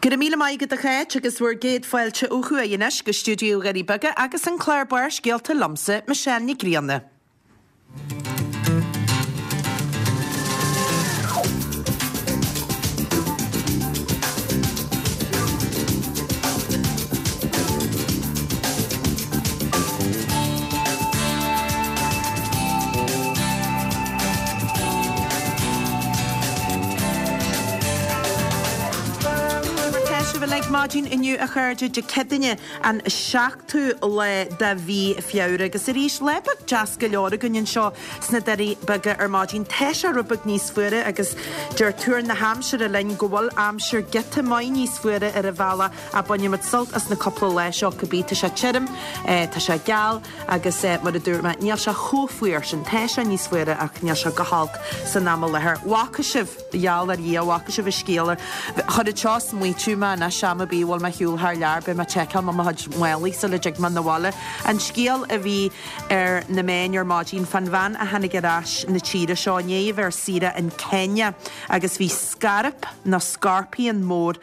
Go raibh míle maith agat a Cháit agus bhur gcéad fáilte ó thuaidh anois go stiúideo Dhoirí Beaga agus an clár Barrscéalta liomsa, Michelle Nic Grianna. Mar tá sibh uilig maidin inniu a chairde, Dé Céadaoine an 7ú lá de mhí Feabhra agus arís lá beag deas go leor againn anseo sna Doirí Beaga ar maidin. Tá sé rud beag níos fuaire agus deir tuar na haimsire linn go bhfuil aimsir giota maith níos fuaire ar an bhealach ach bainfidh muid sult as na cúpla lá seo cibé. Tá sé tirim, tá sé geal agus mar a dúirt mé níl sé chomh fuar sin. Tá sé níos fuaire ach níl sé go holc san am i láthair. Bhfaca sibh, gheall ar Dhia, bhfaca sibh an scéal ar, chuir an seo smaoitiú mé anois am ar bith a bhfuil mé ar shiúl thar lear beidh mé ag seiceáil mo chuid málaí sula dtig mé 'na bhaile. An scéal a bhí ar na meáin ar maidin fán bhean a tháinig ar ais na tíre seo i ndiaidh a bheith ar saoire in Kenya agus bhí scairp nó scorpion mór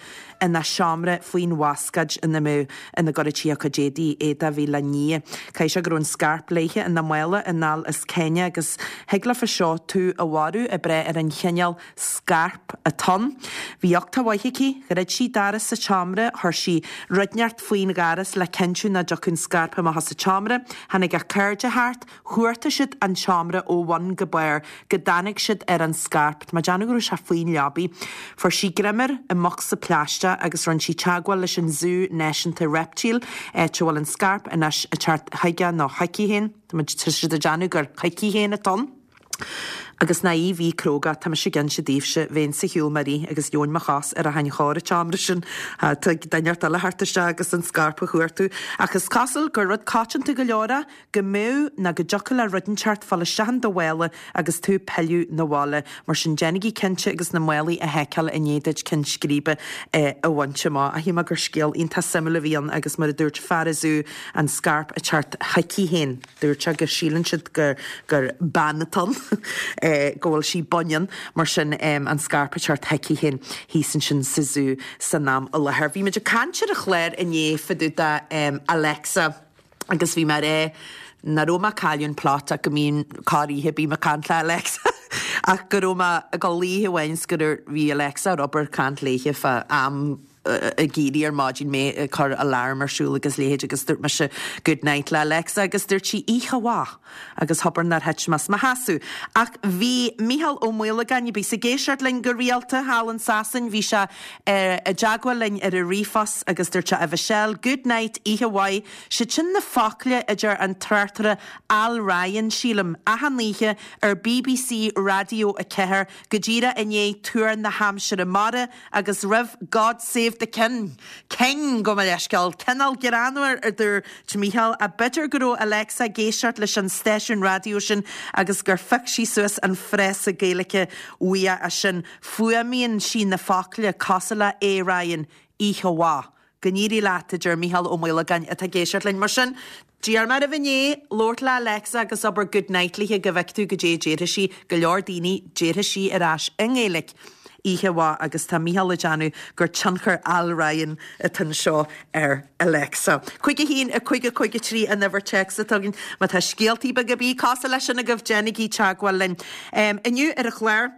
ina seomra faoin bhascáid ina mbeadh, ina gcuireadh sí a cuid éadaí, éadaí a bhí le ní. Caithfidh sé go raibh an scairp léithe ina mála anall as Kenya agus thig leofa seo tú a mharú ag brath ar an chineál scairp atá ann. Bhí uchtach mhaith aici, dhruid sí doras a tseomra, chuir sí rud inteacht faoin dhoras le cinntiú nach dtiocfadh an scairp amach as an tseomra. Tháinig a cairde thart, Chuartaigh siad an seomra ó bhun go barr go dtáinig siad ar an scairp. Tá mé ag déanamh go raibh sé faoin leabaidh. Fuair sí greim air i mbocsa plaisteach agus rinne sí teagmháil leis an Zú Náisiúnta Reiptíl, áit a bhfuil an scairp anois ag teacht chuige nó chuici féin. Tá siad ag déanamh gur chuici féin atá ann. Agus nach í a bhí cróga, tá mise ag inse daoibhse, bheinnse ar shiúl mé rith agus gheobhainn mo chos ar achan chor an tseomra sin. Tig duine inteacht eile thart isteach agus an scairp a chuartú. Ach is cosúil gur rud coitianta go leor é go mbeadh nó go dtiocfadh le rud inteacht fáil isteach in do mhála agus tú ag pilleadh 'na bhaile. Mar sin déanaigí cinnte agus na málaí a sheiceáil i ndiaidh duit ceann scríbe a bhaint amach. Ach shíl mé gur scéal iontach suimiúil a bhí ann agus mar a dúirt fear an zú an scairp ag teacht chuici féin. Dúirt sé go síleann siad gur gur bean atá ann, go bhfuil sí baineann, mar sin an scairp ag teacht chuici féin thíos ansin sa zú san am i láthair. Bhí muid ag caint ar an chlár inné fá dtaobh de Alexa. Agus bhí mé ag rá nach raibh mé ag cailleadh an plot ach go mbíonn corr oíche bím ag caint le Alexa ach go raibh mé ag dul oíche amháin 's go raibh bhí Alexa ar obair caint léithe fá am ag éirí ar maidin mé ag cur alarm ar siúl agus leithéid agus dúirt mise good night le Alexa agus dúirt sí oíche mhaith agus abair nár thit mé as mo sheasamh. Ach bhí Mícheál Ó Maolagáin, a bhíos ag éisteacht linn go rialta thall in Sasain, bhí sé i dteagmháil linn ar an ríomhphost agus dúirt sé, A Mhichelle, good night, oíche mhaith, siad sin na focla a deir an tráchtaire Al Ryan, sílim, achan oíche ar bbc Raidió 4 go díreach i ndiaidh tuar na haimsire mara agus roimh God Save the King, King, gabh mo leithscéal, cineál greannmhar a dúirt Mícheál, ach b'fhéidir go raibh Alexa ag éisteacht leis an stáisiún raidió sin agus gur phioc sí suas an frása Gaeilge uaidh sin. Fuaimíonn sí na focla cosúil le A Ryan, oíche mhaith. Go n-éirí leat, a deir Mícheál Ó Maolagáin atá ag éisteacht linn. Mar sin, d'iarr mé oraibh inné labhairt le Alexa agus abair good night léithe go bhfeice tú goidé a déarfaidh sí. Go leor daoine, déarfaidh sí ar ais i nGaeilge oíche mhaith agus tá Mícheál ag déanamh gur tionchar Al Ryan atá anseo ar Alexa. 5 1 5 5 3 an uimhir téacs atá againn. Má tá scéaltaí beaga ar bith cosúil leis sin agaibh, déanaigí teagmháil linn. Inniu ar an chlár,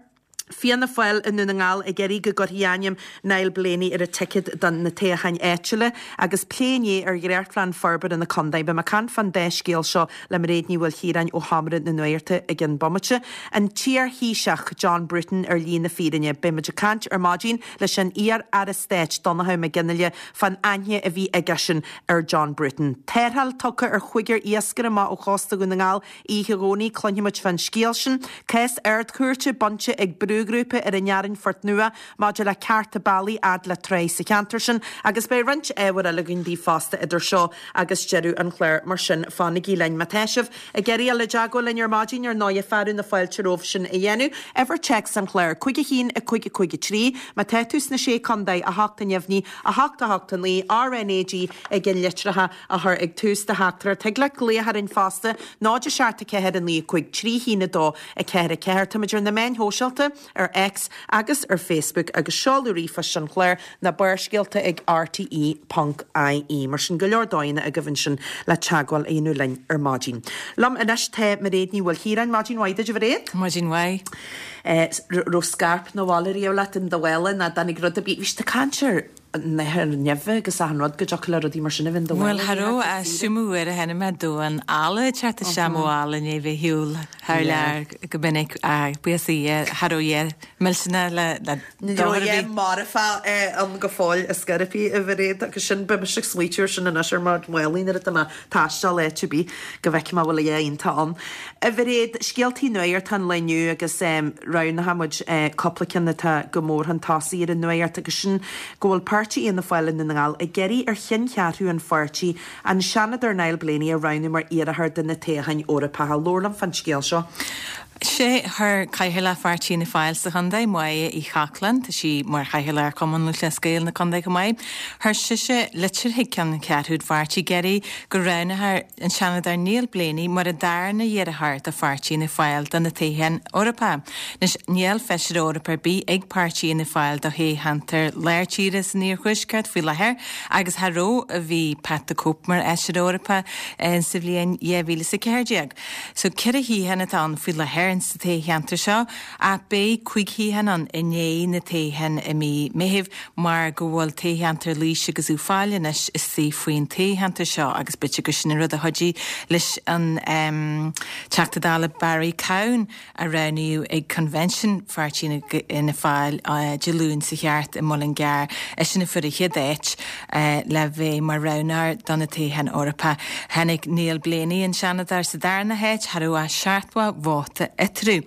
Fianna Fáil i nDún na nGall ag iarraidh go gcuirfí ainm Niall Blaney ar an ticéad do na toghcháin áitiúla agus plé inné ar dhréachtphlean forbartha na contae. Beidh mé ag caint fán dá scéal seo le Mairéad Ní Mhaoilchiaráin ó Sheomra na Nuachta i gceann bomaite. An t-iar-Thaoiseach John Bruton ar shlí na fírinne. Beidh muid ag caint ar maidin leis an iar-Aire Stáit Donnchadh Mac Fhionnghaile fán aithne a bhí aigesean ar John Bruton. Tarrtháil tugtha ar chúigear iascaire amach ó chósta Dhún na nGall oíche Dhomhnaigh, cluinfidh muid fán scéal sin. Cás Ard-Chúirte bainte ag brúghrúpa ar an Fhearann Phort Nua maidir le cearta bealaigh fhad le tráigh sa cheantar sin agus beidh roinnt ábhair eile againn daoibh fosta idir seo agus deireadh an chláir mar sin fanaigí linn. Má tá sibh ag iarraidh dul i dteagmháil linn ar maidin ar ndóighe fearadh na fáilte romhaibh sin a dhéanamh. Uimhir téacs an chláir, 5 1 5 5 3. Má tá tú sna Sé Contae, 8 neamhní, 8 8 9, RNAG ag an litreacha a chur ag tús do theachtaireacht. Thig leat glaoch orainn fosta, 0 7 4 9 5 3 1 2 4 4. Táimid ar na meáin shóisialta. ar X agus ar Facebook agus seoladh ríomhphoist an chláir ná Barrscéalta ag rte ponc ie. Mar sin, go leor dóigheanna agaibh ansin le teagmháil a dhéanamh linn ar maidin. Liom anois tá Mairéad Ní Mhaoilchiaráin. Maidin mhaith duit, a Mhairéad. Maidin mhaith. Raibh scairp 'na bhaile riamh leat in do mhála nó dtáinig rud ar bith, bhí siad ag caint ar nathair nimhe agus achan rud go dtiocfadh le rudaí mar sin a bheith in do mhála. Bhuel, cha raibh ach 's iomdha uair a chonaic mé damhán alla ag teacht isteach mo mhála i ndiaidh bheith ar shiúl thar lear go minic ach buíochas le Dia cha raibh a dhath millteanach le Ní raibh a dhath marfach ann go fóill ar scor ar bith, a Mhairéad, agus sin, beidh mise ag smaoitiú ar sin anois ar mo mhálaí nuair atá mé ag taisteal áit ar bith go bhfeicfidh mé an bhfuil a dhath iontach ann. A Mhairéad, scéaltaí nuachta an lae inniu agus roghnaigh muid cúpla ceann atá go mór chun tosaigh ar an nuacht agus sin go bhfuil páirtí Fhianna Fáil i nDún na nGall ag iarraidh ar cheanncheathrú an pháirtí an Seanadóir Niall Blaney a roghnú mar iarrthóir do na toghcháin Eorpacha. Labhair liom fán scéal seo. Sé, chuir Cathaoirleach Pháirtí Fhianna Fáil sa chontae, Máire Uí Chochláin, tá sí mar Chathaoirleach ar Chumann Lúthchleas Gael na contae chomh maith, chuir sise litir chuig ceanncheathrú an pháirtí ag iarraidh go roghnófar an Seanadóir Niall Blaney mar an darna iarrthóir do Pháirtí Fhianna Fáil do na toghcháin Eorpacha. Anois, níl Feisire Eorpach ar bith ag Páirtí Fhianna Fáil do thoghcheantar lár tíre san iarthuaisceart faoi láthair agus cha raibh ó bhí Pat the Cope mar Fheisire Eorpach sa bhliain 2014. So, 4 shuíochán atá ann faoi láthair sa toghcheantar seo ach beidh 5 shuíochán ann i ndiaidh na toghcháin i mí Meithimh mar go bhfuil toghcheantar Laois agus Uíbh Fhailí anois istigh faoin toghcheantar seo agus b'fhéidir gur sin an rud a chuidigh leis an Teachta Dála Barry Cowen a roghnaíodh ag Convention Pháirtí Fhianna Fáil Dé Luain seo thart i Mullingar, eisean a fuair an chéad áit le bheith mar roghnóir do na toghcháin Eorpacha. Tháinig Niall Blaney, an Seanadóir, sa darna háit, cha raibh ach 70 vóta eatarthu.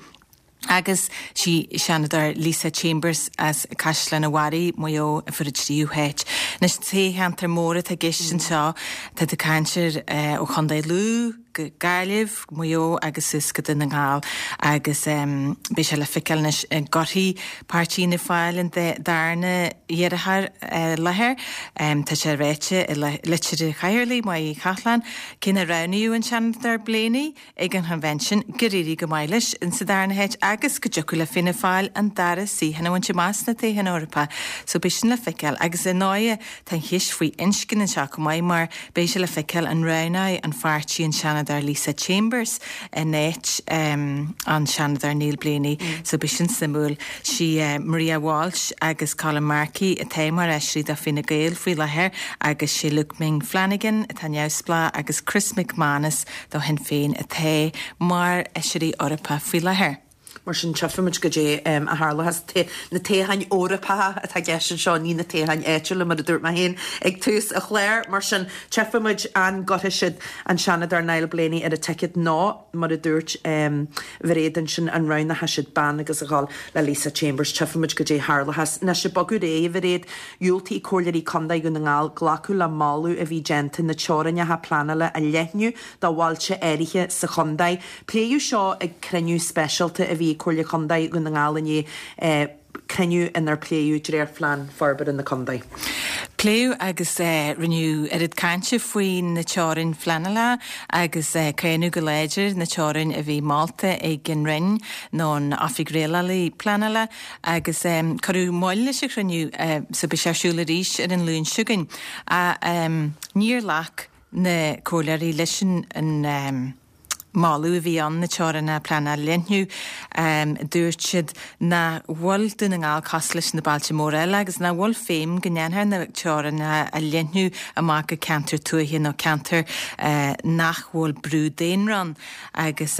Agus sí Seanadóir Lisa Chambers as Caisleán an Bharraigh, Maigh Eo, a fuair an tríú háit. Anois, toghcheantar mór atá i gceist anseo, tá tú ag caint ar ó Chontae Lú, go Gaillimh, Maigh Eo agus suas go Dún na nGall agus beidh sé le feiceáil anois an gcuirfidh Páirtí Fhianna Fáil an darna iarrthóir i láthair. Tá sé ráite i litir an Chathaoirligh, Máire Uí Chochláin, cé nár roghnaíodh an Seanadóir Blaney ag an Chonvention, gur éirigh go maith leis sa darna háit agus go dtiocfadh le Fianna Fáil an dara suíochán a bhaint amach sna toghcháin Eorpacha. So beidh sin le feiceáil agus ar ndóighe tá an cheist faoi inscne anseo chomh maith mar Beidh sé le feiceáil an roghnóidh an pháirtí an Seanadóir Lisa Chambers in áit an Seanadóir Niall Blaney so beidh sin suimiúil. Sí Maria Walsh agus Colin Markey atá mar fheisirí do Fine Gael faoi láthair agus sé Luke Ming Flanagan atá neamhspleách agus Chris McManus do Shinn Féin atá mar fheisirí Eorpacha faoi láthair. Mar sin, tchífimid goidé a tharlóchas. Na toghcháin Eorpacha atá i gceist anseo, ní na toghcháin áitiúla, mar a dúirt mé féin ag tús an chláir. Mar sin, tchífimid an gcuirfidh siad an Seanadóir Niall Blaney ar an ticéad nó, mar a dúirt Mhairéad ansin, an roghnóidh siad bean agus a dhul le Lisa Chambers. Tchífimid goidé a tharlóchas. Anois, ag bogadh ar aghaidh, a Mhairéad, dhiúltaigh Comhairleoirí Contae Dhún na nGall glacadh le moladh a bhí déanta na teorainneacha pleanála a leathnú do bhailte áirithe sa chontae. Pléadh seo ag cruinniú speisialta a bhí ag Comhairle Contae Dhún na nGall inné, cruinniú inar pléadh dréachtphlean forbartha na contae. Pléadh agus rinneadh oiread cainte faoi na teorainn phleanála agus cáineadh go láidir na teorainn a bhí molta ag an Roinn nó an Oifig Rialála Pleanála agus cuireadh moill leis an chruinniú so beidh sé ar siúl arís ar an Luan seo chugainn. Níor ghlac na comhairleoirí leis an moladh a bhí ann na teorainneacha pleanála a leathnú. Dúirt siad nach bhfuil Dún na nGall cosúil leis na bailte móra eile agus nach bhfuil feidhm go ndéanfar na teorainneacha a leathnú amach go ceantair tuaithe nó ceantair nach bhfuil brú daonra ann. Agus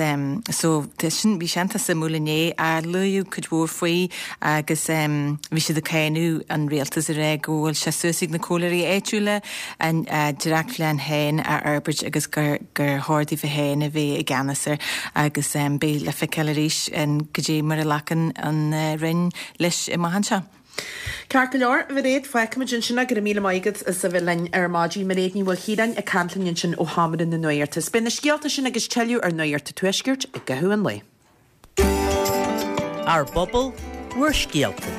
so sin, bhí sé iontach suimiúil inné, luadh cuid mhór faoi agus bhí siad ag cáineadh an rialtas ag rá go bhfuil sé suas ag na comhairleoirí áitiúla a ndréachtphlean féin a fhorbairt agus gur gur chóir daofa féin a bheith i gceannas air agus beidh le feiceáil arís goidé mar a ghlacann an Roinn leis amach anseo. Ceart go leor, a Mhairéad, fágfaimid ansin é. Go raibh míle maith agat as a bheith linn ar maidin. Mairéad Ní Mhaoilchiaráin ag caint linn ansin ó Sheomra na Nuachta. Beidh na scéalta sin agus tuilleadh ar Nuacht an Tuaiscirt i gcaitheamh an lae. Ár bpobal, bhur scéalta.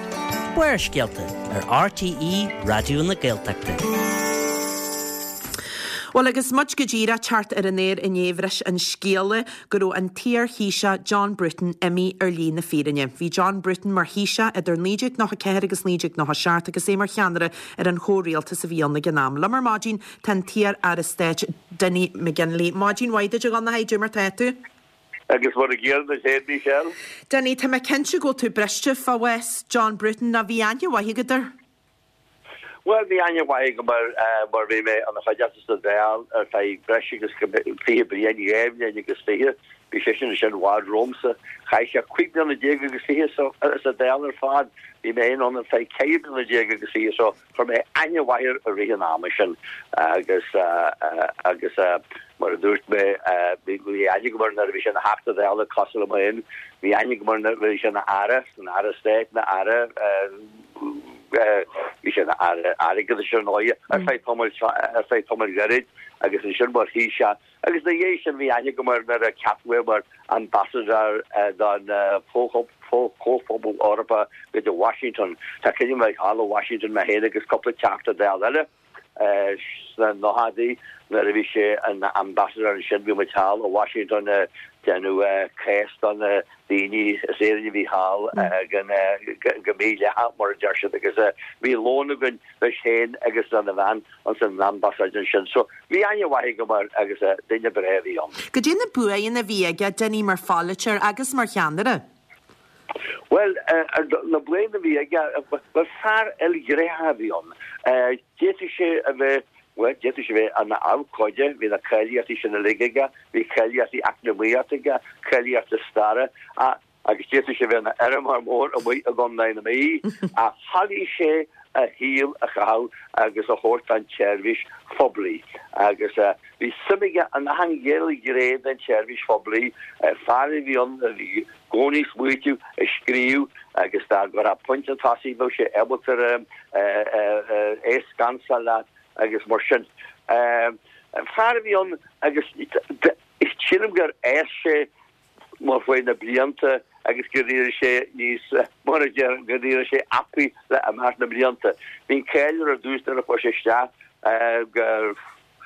Barrscéalta ar RTÉ Raidió na Gaeltachta. Bhuel agus muid go díreach teacht ar an aer inné bhris an scéala go raibh an t-iar-Thaoiseach John Bruton imithe ar shlí na fírinne. Bhí John Bruton mar Thaoiseach idir 1994 agus 1997 agus é mar cheannaire ar an chomhrialtas a bhí ann ag an am. Liom ar maidin tá an t-iar-aire stáit Dinny McGinley. Maidin mhaith duit a Dhonnchadha, cad é mar tá tú? Agus mar a gcéanna duit féin, Michelle. Dinny, tá mé cinnte go bhfuil tú briste fá bhás John Bruton, nó bhí aithne mhaith agat air? Bhuel, bhí aithne mhaith agam air mar bhí mé ina chuideachta sa Dáil ar feadh breis agus 20 bliain, 2 bhliain agus 20. Bhí seisean ansin i bhfad romhamsa. Chaith sé 15 bliana agus fiche sa Dáil ar fad. Bhí mé féin ann ar feadh 14 bliana agus fiche so chuir mé aithne mhaith air i rith an ama sin agus agus mar a dúirt mé bhí aithne agam air nuair a bhí sé ina Theachta Dála cosúil liom féin. Bhí aithne agam air nuair a bhí sé ina Aire, ina Aire Stáit, ina Aire. Bhí sé ina Aire Airgeadais ar ndóighe ar feadh tamaill ar feadh tamaill ghairid agus ansin mar Thaoiseach agus ina dhiaidh sin bhí aithne agam air nuair a ceapadh é mar Ambassador don Chomhphobal Eorpach go dtí Washington. Tá cuimhne agam thall i Washington mé féin agus cúpla Teachta Dála eile. Sna nóchaidí nuair a bhí sé ina ambassador ansin bhí muid thall i Washington ag déanamh cás do na daoine as Éirinn a bhí thall go mídhleathach mar a deir siad agus bhí lón againn leis féin agus lena bhean ins an ambasáid ansin. So bhí aithne mhaith agam air agus duine breá a bhí ann. Cad é na buanna a bhí aige, Dinny, mar pholaiteoir agus mar cheannaire? Bhuel, na buanna a bhí aige, bhuel, fear ilghnéitheach a bhí ann. D'fhéadfadh sé a bheith, bhuel, d'fhéadfadh sé a bheith ina abhcóide, bhí na cáilíochtaí sin uilig aige, bhí cáilíochtaí eacnamaíochta aige, cáilíochtaí staire, agus d'fhéadfadh sé a bheith ina fheirmeoir mór amuigh i gContae na Mí, ach thoiligh sé a shaol a chaitheamh agus a thabhairt don tseirbhís phoiblí. Agus bhí suim aige in achan ghné den tseirbhís phoiblí, fear a bhí ann a bhí i gcónaí ag smaoitiú, ag scríobh agus dá gcuirfeá pointe chun tosaigh bheadh sé ábalta é a scansáil leat agus mar sin. Fear a bhí ann agus sílim gur fhás sé mar chuaigh na blianta agus gur éirigh sé níos, mar a deir, gur éirigh sé apaí le imeacht na mblianta. Bhí an cáil air ar dtús nuair a chuaigh sé isteach gur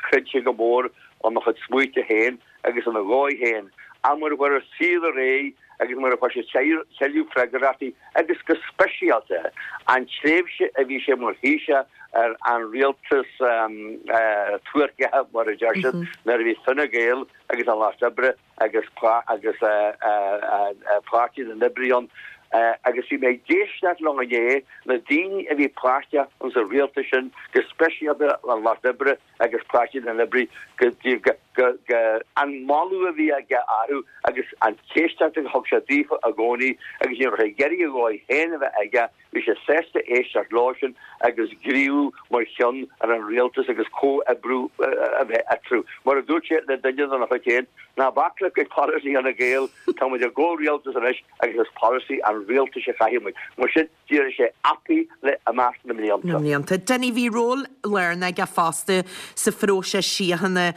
chreid sé go mór ina chuid smaointe féin agus ina dhóigh féin, ach mar a chuaigh an saol ar aghaidh agus mar a fuair sé tuilleadh freagrachtaí agus go speisialta an tréimhse a bhí sé mar Thaoiseach ar an rialtas tuairceach, mar a deir siad, nuair a bhí Fine Gael agus an Lucht Oibre agus agus Páirtí na nOibrithe ann agus bhí mé ag éisteacht leo inné, na daoine a bhí páirteach ins an rialtas sin, go speisialta an Lucht Oibre agus Páirtí na nOibrithe, go go go an moladh a bhí aige orthu agus an éisteacht a thug sé daofa i gcónaí agus ní raibh sé ag iarraidh a dhóigh féin a bheith aige Bhí sé sásta éisteacht leosan agus gníomhú mar cheann ar an rialtas agus comhoibriú a bheith eatarthu. Mar a dúirt sé le duine dena chuid féin, Ná bac le polasaí Fhine Gael, tá muid i gcomhrialtas anois agus is polasaí an rialtais a chaithfidh muid. Mar sin, d'éirigh sé apaí le imeacht na mblianta. Na mblianta. Dinny, bhí ról lárnach aige fosta sa phróiseas síochána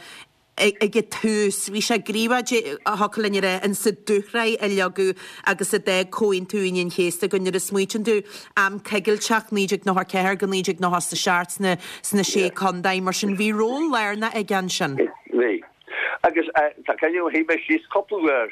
ag an tús. Bhí sé gníomhach, thiocfadh linn a rá, in sa dúshraith a leagadh agus a d'fhág Comhaontú Aoine an Chéasta againn. Nuair a smaoitíonn tú, am coigilteach, 1994-1997 sna sna Sé Contae, mar sin bhí ról lárnach aige ansin. Bhí. Agus tá cuimhne agam, shuigh mé síos cúpla uair,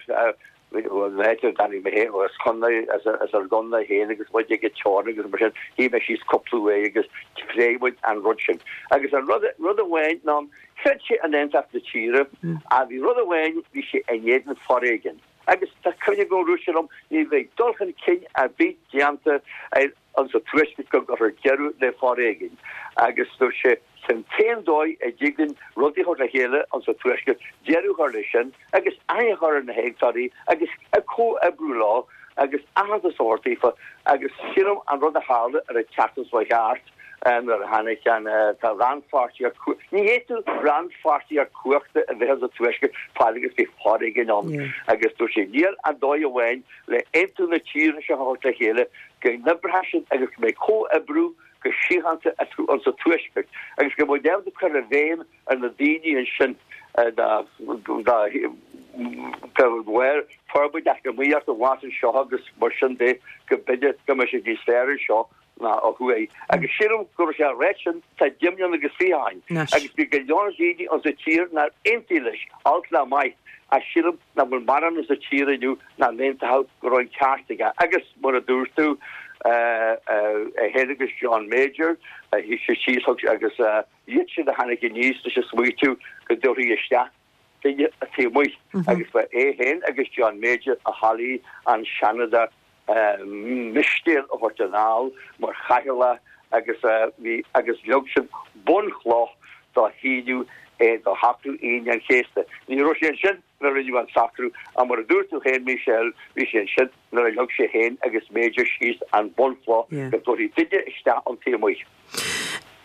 Bhuel, na háite a dtáinig mé féin, as contae, as ár gcontae féin agus muid ag an teorainn agus mar sin, shuigh mé síos cúpla uair agus phléigh muid an rud sin. Agus an rud, rud amháin ná, chreid sé in aontacht na tíre, ach bhí rud amháin, bhí sé in éadan foréigin. Agus tá cuimhne agam, dúirt sé liom, ní bheidh dul chun cinn ar bith déanta ar, Insa Tuaisceart go gcuirfear deireadh le foréigean agus dúirt sé sin t-aon dóigh a dtig linn rudaí a chur le chéile insa Tuaisceart, deireadh a chur leis sin agus aithne a chur ar na héagtóirí agus comhoibriú leo agus aitheantas a thabhairt daofa agus sílim an rud a tharla ar an tseachtain seo thart nuair a tháinig an tá rannpháirtíocht ní fhéadfadh rannpháirtíocht cumhachta a bheith insa Tuaisceart fad agus bhí foréigean ann agus dúirt sé níl ach dóigh amháin le aontú na tíre seo a thabhairt le chéile, go n-oibreoidh siad agus go mbeidh comhoibriú go síochánta eatarthu insa Tuaisceart agus go mbeidh ábalta cur i bhfeidhm ar na daoine ansin dá bharr forbairt eacnamaíochta amach anseo agus mar sin de go mb'fhéidir go mbeidh sé níos fearr anseo. ná ó thuaidh. Agus sílim go raibh sé á ráit sin tá 20 mbliana agus 20 ó shin. Agus bhí go leor daoine insa tír nár aontaigh leis, olc ná maith, ach sílim nach bhfuil mórán insa tír inniu nach n-aontódh go raibh an ceart aige. Agus mar a dúirt tú, é féin agus John Major, shuigh siad síos agus iad sin a tháinig aníos leis an smaoitiú go dtabharfaí isteach duine taobh amuigh agus ba é féin agus John Major a thoiligh an Seanadóir Mistéil a thabhairt anall mar chathaoirleach agus bhí agus leag siad bunchloch do shíniú é do shocrú Aoine an Chéasta. Ní raibh sé ansin nuair a rinneadh an socrú ach mar a dúirt tú féin Michelle, bhí sé ansin nuair a leag sé féin agus Major síos an bunchloch go dtabharfaí duine isteach ón taobh amuigh.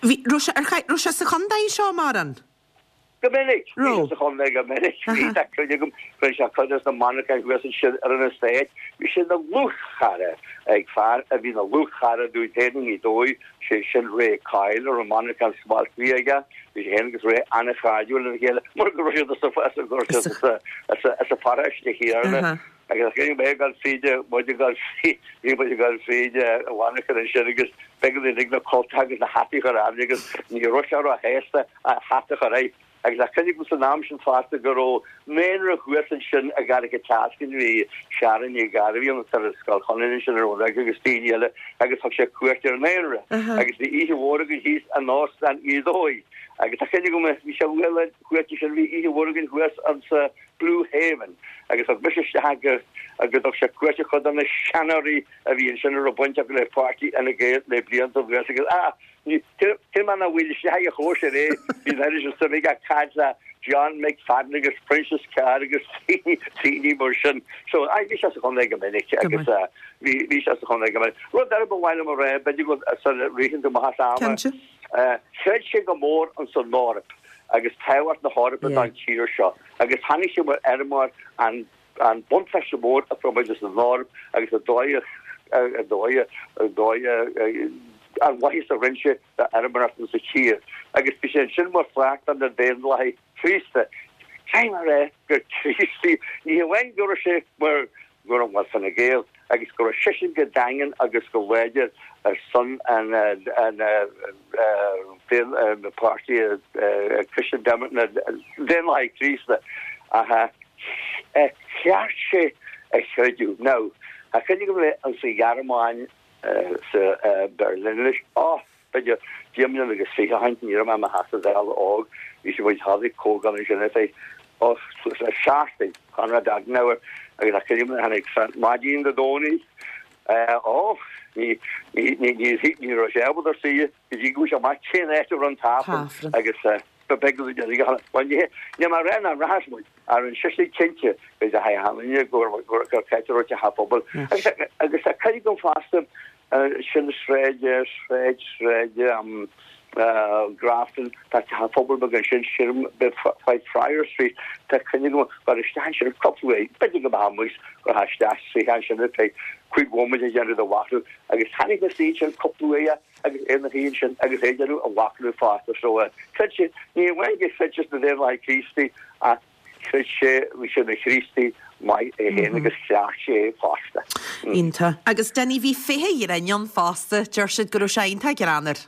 Bhí, raibh sé, ar, raibh sé sa chontae seo mórán? Go minic. Bhí sé sa chontae go minic. Bhí tá cuimhne agam, rinne sé cuid de na monarcháin thuas ansin ar an estate. Bhí sé ina dhlúthchara ag fear a bhí ina dhlúthchara dúinn féin i nGaoth Dobhair, sé sin Ray Coyle, a raibh an monarchán smalt bhí aige. Bhí sé féin agus Ray an-chairdiúil lena chéile mar go raibh siad as an pharóiste chéanna. Agus bhí mé ag dul fríd, muid ag dul fríd, bhí muid ag dul fríd an mhonarchan ansin agus b'éigean dúinn uilig na cultacha agus na hataí a chur orainn agus ní raibh sé róshásta a hata a chur air. Agus tá cuimhne agam san am sin fosta go raibh naíonra thuas ansin i gCarraig an tSeascainn, bhí Sharon Ní Ghairbhí ann ar Scoil Chonaire ansin ar an Rug agus daoine eile agus thug sé cuairt ar an naíonra agus bhí oíche mhór againn thíos in Óstán Ghaoth Dobhair agus tá cuimhne agam bhí sé uaidh cuairt ansin bhí oíche mhór againn thuas ansa Blue Haven, agus thug mise isteach go go dtug sé cuairt ar chuid de na seanóirí a bhí ansin a raibh baint acu le páirtí Fhine Gael le blianta anuas agus ah, ní, cé mar nach bhfuil isteach ag a chóisir é, bhí an oiread sin suim aige ag caint le John McFadden agus Proinsias Carr agus daoine mar sin. So, ah, bhí sé sa chontae go minic agus ah, bhí, bhí sé sa chontae go minic. Rud eile ba mhaith liom a rá, b'fhéidir go sula ritheann tú amach as am, Cinnte. Chreid sé go mór ins an Eoraip agus tábhacht na hEorpa don tír seo agus chonaic sé mar fheirmeoir an an buntáiste mór a fuair muid as an Eoraip agus an dóigh a dóigh a dóigh an mhaitheas a rinne sé d'fheirmeoireacht insa tír agus bhí sé ansin mar pháirt de na Daonlathaigh Chríosta. Caithfidh mé a rá gur Críostaí ní hamháin go raibh sé mar go raibh mar Fine Gael agus go raibh seisean go daingean agus go láidir ar son an páirtí Christian na Daonlathaigh Chríosta ach cheart sé a chreideamh. Now, tá cuimhne agam le insa Ghearmáin sa Berlin anois, oh! B'fhéidir 20 mbliana agus 20 ó shin, ní raibh mé i mo Theachta Dála óg, bhí sé muid tháinig comhdháil ansin ar feadh, oh, suas le seachtain, Konrad Adenauer agus tá cuimhne agam tháinig maidin Dé Domhnaigh, oh, ní, ní, ní, ní, ní raibh sé ábalta suí go dtí go bhfuair sé amach cén áit a raibh an tAifreann agus ba bheag go dtí go bhuel, ní, ní mar aon an rachas muid, ach rinne seisean cinnte go dteachaigh achan duine gur, gur, gur ceart a raibh teach an phobail agus, agus tá cuimhne agam fosta Sin sráid, sráid, sráid Grafton, tá teach an phobail beag ansin, sílim, Whitefriar Street, tá cuimhne agam gur isteach ansin cúpla uair, b'fhéidir go mbeadh amuigh gur isteach suí ansin ar feadh cúig bhomaite ag déanamh do mhachnaimh agus tháinig na suí ansin cúpla uair agus é ina shuí ansin agus é ag déanamh a mhachnaimh fosta so chreid sé, ní amháin gur chreid sé sna Daonlathaigh Críostaí ach Chreid sé, bhí sé ina Chríostaí maith é féin agus chleacht sé é fosta. Iontach. Agus Dinny, bhí féithe ghrinn ann fosta. Deir siad go raibh sé iontach greannmhar.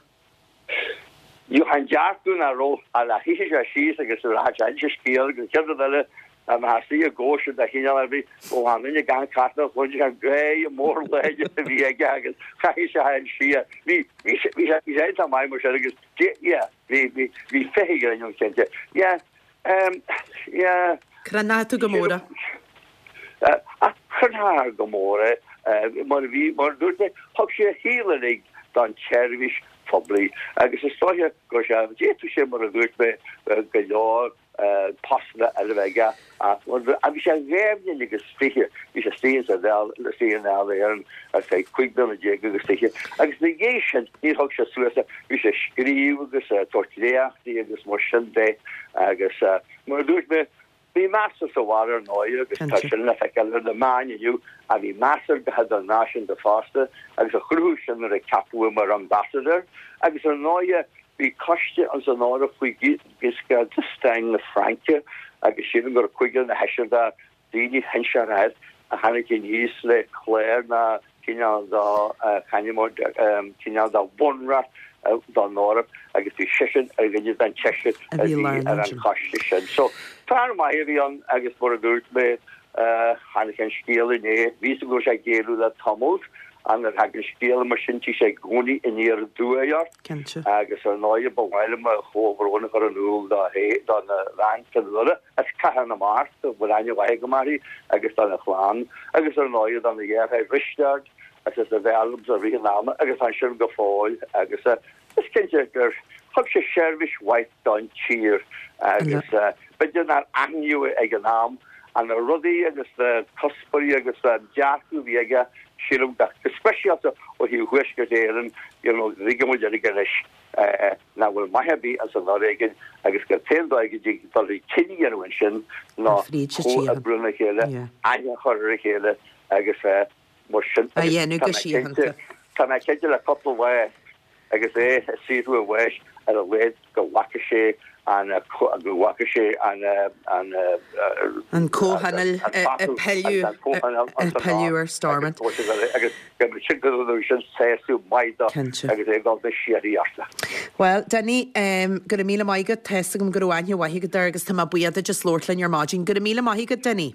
Gheobhthá an dearcadh nach raibh ach le shuífeadh sé síos agus rachadh sé inse scéal agus an chéad rud eile dá mbeifeá istigh i gcóisir de chineál ar bith ó an duine gan cartna chluinfeadh an gáire mór láidir a bhí aige agus chaithfeadh sé an siar. Bhí bhí sé bhí sé bhí sé iontach maith mar sin agus yeah bhí bhí bhí féithe ghrinn ann cinnte. Yeah Yeah. Crothnaigh tú go mór é. Chrothnaigh go mór é. Mar a bhí, mar a dúirt mé, thug sé a shaol uilig don tseirbhís phoiblí agus is dóiche go raibh sé, d'fhéadfadh sé, mar a dúirt mé, go leor postanna eile a bheith aige ach bhí sé dhá bhliain agus 20, bhí sé istigh sa Dáil, istigh i nDáil Éireann ar feadh 15 bliana agus 20 agus ina dhiaidh sin níor thug sé suas é, bhí sé ag scríobh agus ag tabhairt léachtaí agus mar sin de agus mar a dúirt mé, bhí meas air sa bhaile ar ndóigh agus tá sin le feiceáil ar na meáin inniu ach bhí meas air go hidirnáisiúnta fosta agus a chruthú sin nuair a ceapadh é mar ambassador agus ar ndóigh bhí coiste ins an Eoraip faoi Giscard d'Estaing na Fraince agus sílim go raibh cúigear nó seisear de daoine shinsearacha a tháinig aníos le clár na. cineál de cineál de bhunreacht don Eoraip agus bhí seisean ar dhuine den tseisear a bhí ar an choiste sin. So, fear maith a bhí ann agus mar a dúirt mé, tháinig an scéal inné, bhí fhios agam go raibh sé ag géilleadh le tamall ach nuair a thagann scéal mar sin tig sé i gcónaí aniar aduaidh ort agus ar ndóigh ba mhaith liom mo chomhbhrón a chur in iúl dona bhean Fionnuala as Cathair na Mart, a bhfuil aithne mhaith agam uirthi, agus dona chlann agus ar ndóigh dona dheartháir Risteard agus as a bhean liomsa i rith an ama agus tá ansin go fóill agus is cinnte gur thug sé seirbhís mhaith don tír agus b'fhéidir nár aithníodh é ag an am ach na rudaí agus na cuspóirí agus an dearcadh a bhí aige sílim go speisialta ó thaobh Thuaisceart Éireann you know tuigeann muid uilig anois nach bhfuil maith ar bith as an fhoréigean agus gur t-aon dóigh go dtig dul chun cinn a dhéanamh ansin ná comhoibriú lena chéile, aithne a chur ar a chéile agus mar sin. A dhéanamh go síochánta. Tá mé cinnte le cúpla lá agus é ag saothrú a bháis ar a laghad go bhfaca sé an go bhfaca sé an an An comhthionól ag pilleadh ar Stormont. Agus go mbeadh sin go raibh sin sásamh maith dó agus é ag dul go síoraí orthu. Bhuel, Dinny, go raibh míle maith agat. Tá fhios agam go raibh aithne mhaith agat air agus tá mé buíoch duit as labhairt linn ar maidin. Go raibh míle maith agat, Dinny.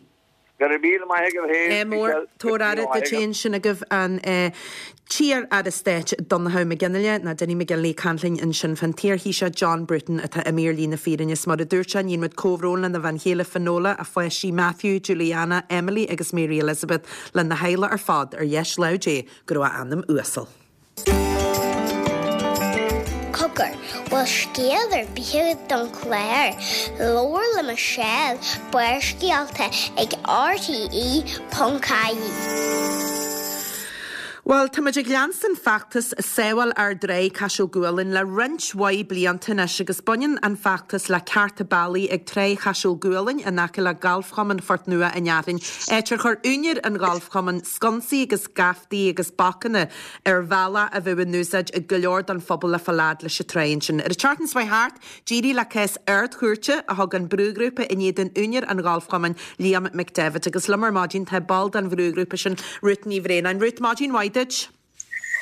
Go raibh míle maith agat féin, Ádh mór, Michelle. Tabhair aire duit féin. Sin agaibh an t-iar-aire stáit Donnchadh McGinley, nó Dinny McGinley, ag caint linn ansin fán t-iar-Thaoiseach John Bruton atá imithe ar shlí na fírinne. Is mar a dúirt sé, níonn muid comhbhrón lena bhean chéile Finola, a pháistí Matthew, Juliana, Emily agus Mary Elizabeth, lena theaghlach ar fad, ar dheis láimh Dé go raibh a anam uasal. Cogar, bhfuil scéal ar bith agat don chlár? Labhair le Michelle, Barrscéalta ag RTE.ie. Bhuel, tá muid ag leanstan feachtas Sábháil Ár dTráigh Caiseal Gualainn le roinnt mhaith blianta anois agus baineann an feachtas le cearta bealaigh ag Tráigh Chaiseal Gualainn in aice le Galfchumann Phort Nua an Fhearthainn, áit ar chuir úinéir an ghalfchumainn sconsaí agus geaftaí agus bacanna ar bhealach a bheadh in úsáid ag go leor don phobal le fáil fhad leis an tráigh ansin. Ar an tseachtain seo thart, d'éirigh le cás Ard-Chúirte a thug an brúghrúpa in éadan úinéir an ghalfchumainn, Liam McDevitt. Agus liom ar maidin tá ball den bhrúghrúpa sin, Ruth Ní Bhraonáin. Ruth, maidin mhaith duit.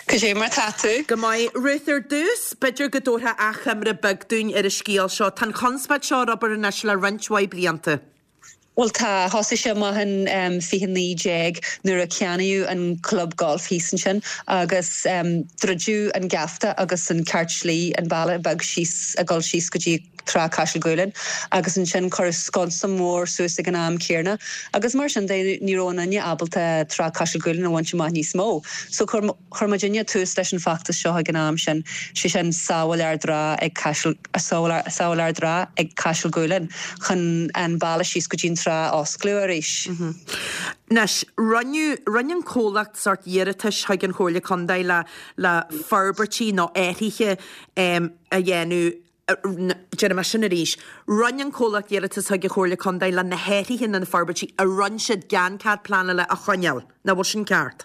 Cad é mar tá tú? Go maith. Ruth, ar dtús, b'fhéidir go dtabharfá achoimre beag dúinn ar an scéal seo. Tá an chonspóid seo ar obair anois le roinnt mhaith blianta. Bhuel tá, thosaigh sé amach in 2019 nuair a ceannaíodh an club golf thíos ansin agus druideadh an geafta agus an ceart slí, an bealach beag síos ag dul síos go dtí Trá Caiseal Gualainn agus ansin cuireadh sconsa mór suas ag an am céarna agus mar sin de ní raibh aon duine ábalta Trá Caiseal Gualainn a bhaint amach níos mó. So chuir Chuir muidinne tús leis an bhfeachtas seo ag an am sin, sé sin Sábháil Ár dTrá ag Caiseal, Sábháil Ár dTrá ag Caiseal Gualainn, chun an bealach síos go dtí an trá a osclú arís. Anois, rinneadh, rinne an comhlacht sórt iarratais chuig an Chomhairle Contae le, le forbairtí nó athruithe a dhéanamh, déarfaidh mé sin arís, rinne an comhlacht iarratas chuig an Chomhairle Contae le na hathruithe nó na forbairtí a rinne siad gan cead pleanála a choinneáil. Nach bhfuil sin ceart?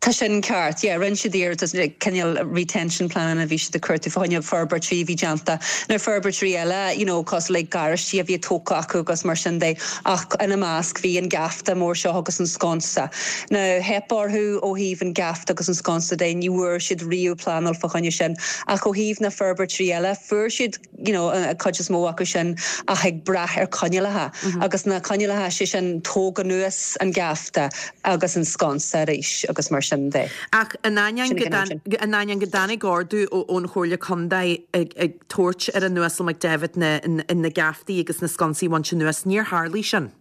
Tá sin ceart, yeah. Rinne siad iarratas, cineál retention plean a bhí siad ag cuartú fá choinne forbairtí a bhí déanta. Now forbairtí eile, you know, cosúil le garáistí a bhí tógtha acu agus mar sin de, ach ina measc bhí an geafta mór seo agus an sconsa. Now theip orthu ó thaobh an geafta agus an sconsa de, ní bhfuair siad riamh pleanáil fá choinne sin. Ach ó thaobh na forbairtí eile, fuair siad, you know, an cuid is mó acu sin ach ag brath ar coinníollacha agus na coinníollacha, sé sin tóg anuas an geafta agus an sconsa arís agus mar sin de. Ach in ainneoin go in ainneoin go dtáinig ordú ón Chomhairle Contae ag ag tabhairt ar an Uasal McDevitt na na geaftaí agus na sconsaí a bhaint anuas, níor tharlaigh sin.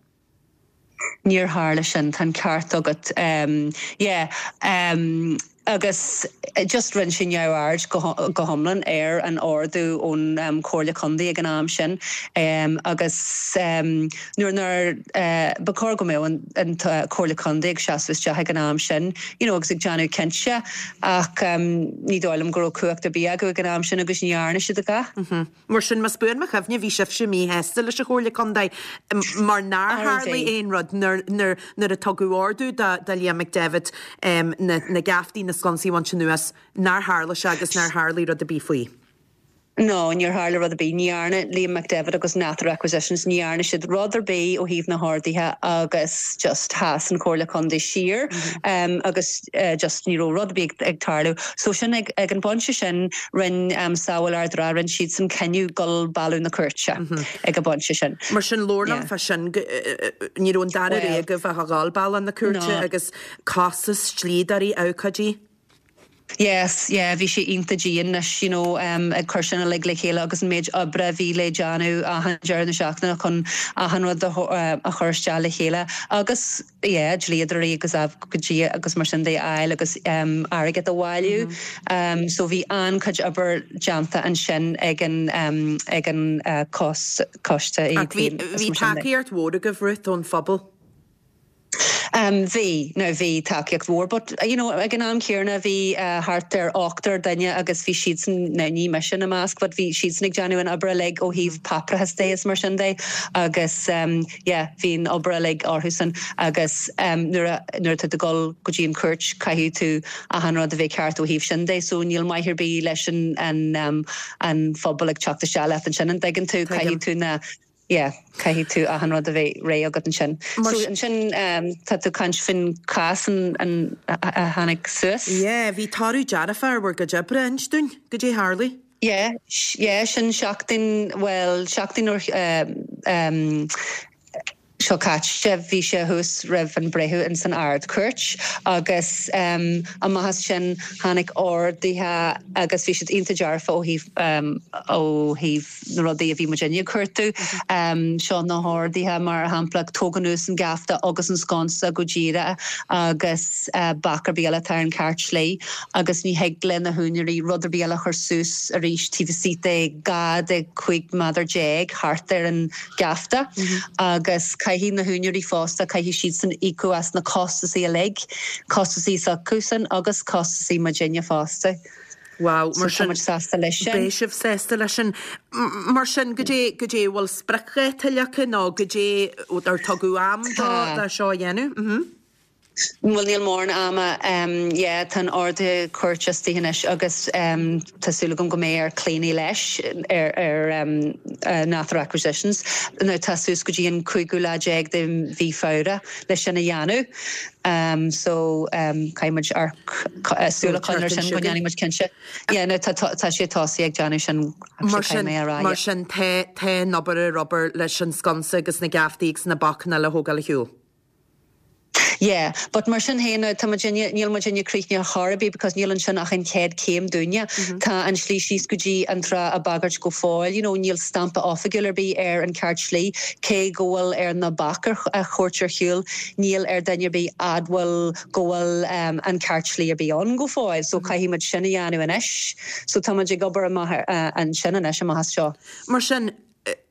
Níor tharla sin, tá an ceart agat. Yeah. Agus just rinne sé neamhaird go hiomlán ar an ordú ón Chomhairle Contae ag an am sin agus nuair nár, ba chóir go mbeadh an Chomhairle Contae ag seasamh isteach ag an am sin you know agus ag déanamh cinnte ach ní dóigh liom go raibh cumhacht ar bith acu ag an am sin agus ní dhearna siad a dhath. Mar sin, más buan mo chuimhne, bhí sibhse míshásta leis an Chomhairle Contae mar nár tharlaigh aon rud nuair a tugadh ordú do Liam McDevitt na geaftaí, na sconsaí a bhaint anuas, nár tharla sé agus nár tharlaigh rud ar bith faoi. No, níor tharla rud ar bith. Ní dhearna Liam McDevitt agus Nather Acquisitions, ní dhearna siad rud ar bith ó thaobh na horduithe agus just sheas an Chomhairle Contae siar agus just ní raibh rud ar bith ag tarlú. So sin ag an bpointe sin rinne Sábháil Ard an Rátha, rinne siadsan cinneadh dul bealach na cúirte ag an bpointe sin. Mar sin labhair liom fá sin, ní raibh an dara rogha agaibh ach a dhul bealach na cúirte agus costas, dlíodóirí, abhcóidí. Yes, yeah, bhí sé iontach dian anois, you know, ag cur sin uilig le chéile agus an méid oibre a bhí le déanamh achan deireadh na seachtaine chun achan rud a chur isteach le chéile agus, yeah, dlíodóirí agus abhcóidí agus mar sin de a fháil agus airgead a bhailiú. So bhí an-chuid obair déanta ansin ag an, ag an coiste Ach bhí, bhí tacaíocht mhór agaibh, Ruth, ón phobal. Bhí, now bhí tacaíocht mhór but you know ag an am céanna bhí thart ar ochtar duine agus bhí siadsan, now ní mise ina measc but bhí siadsan ag déanamh an obair uilig ó thaobh páipéarachas de is mar sin de agus yeah bhí an obair uilig orthusan agus nuair a, nuair atá tú ag dul go dtí an chúirt caithfidh tú achan rud a bheith ceart ó thaobh sin de so níl maith ar bith leis an, an, an phobal ag teacht isteach leat ansin an dtuigeann tú, caithfidh tú na. Yeah, caithfidh tú achan rud a bheith réidh agat ansin. So ansin tá tú ag caint faoin chás an a tháinig suas. Yeah, bhí toradh dearfach ar bhur gcuid oibre, inis dúinn, goidé tharlaigh? Yeah, yeah, sin seachtain, bhuel, seachtain ó seo caite, bhí sé thuas roimh an breitheamh ins an Ard-Chúirt agus amach as sin tháinig orduithe agus bhí siad iontach dearfa ó thaobh, ó thaobh, na rudaí a bhí muidinne ag cuartú. Seo na horduithe, mar shampla, tóg anuas an geafta agus an sconsa go díreach agus bac ar bith eile atá ar an cheart slí agus ní thig le na húinéirí rud ar bith eile a chur suas arís taobh istigh de 12 de 15 méadar thart ar an gheafta agus caithfidh na húinéirí fosta, caithfidh siadsan íocadh as na costasaí uilig, costasaí s'acusan agus costasaí muidinne fosta. Wow, mar sin, tá muid sásta leis sin. Beidh sibh sásta leis sin. Mar sin, goidé, goidé, bhfuil spriocdháta leagtha nó goidé, ar tugadh am do, do seo a dhéanamh? Mhm. Bhuel, níl mórán ama. Yeah, tá an ordú cúirte istigh anois agus tá súil agam go mbeidh ar Clíona leis ar, ar Nather Acquisitions. Now tá suas go dtí an cúigiú lá déag de mhí Feabhra leis sin a dhéanamh. So caithfidh muid súil a choinneáil air sin go ndéanfaidh muid cinnte. Yeah, no, tá tá sé tosaithe ag déanamh sin Mar sin, mar sin tá tá an obair ar obair leis an sconsa agus na geaftaí agus na bacanna eile a thógáil ar shiúl. Yeah, but mar sin féin, tá muidinne, níl muidinne críochnaithe chor ar bith because níl ansin ach an chéad chéim dúinne. Tá an slí síos go dtí an trá á bagairt go fóill, you know, níl stampa oifigiúil ar bith ar an ceart slí, cé go bhfuil ar na baic a thabhairt ar shiúl, Níl ar duine ar bith admháil go bhfuil an ceart slí ar bith ann go fóill so caithfidh muid sin a dhéanamh anois. So tá muid ag obair amach ansin anois, amach as seo. Mar sin,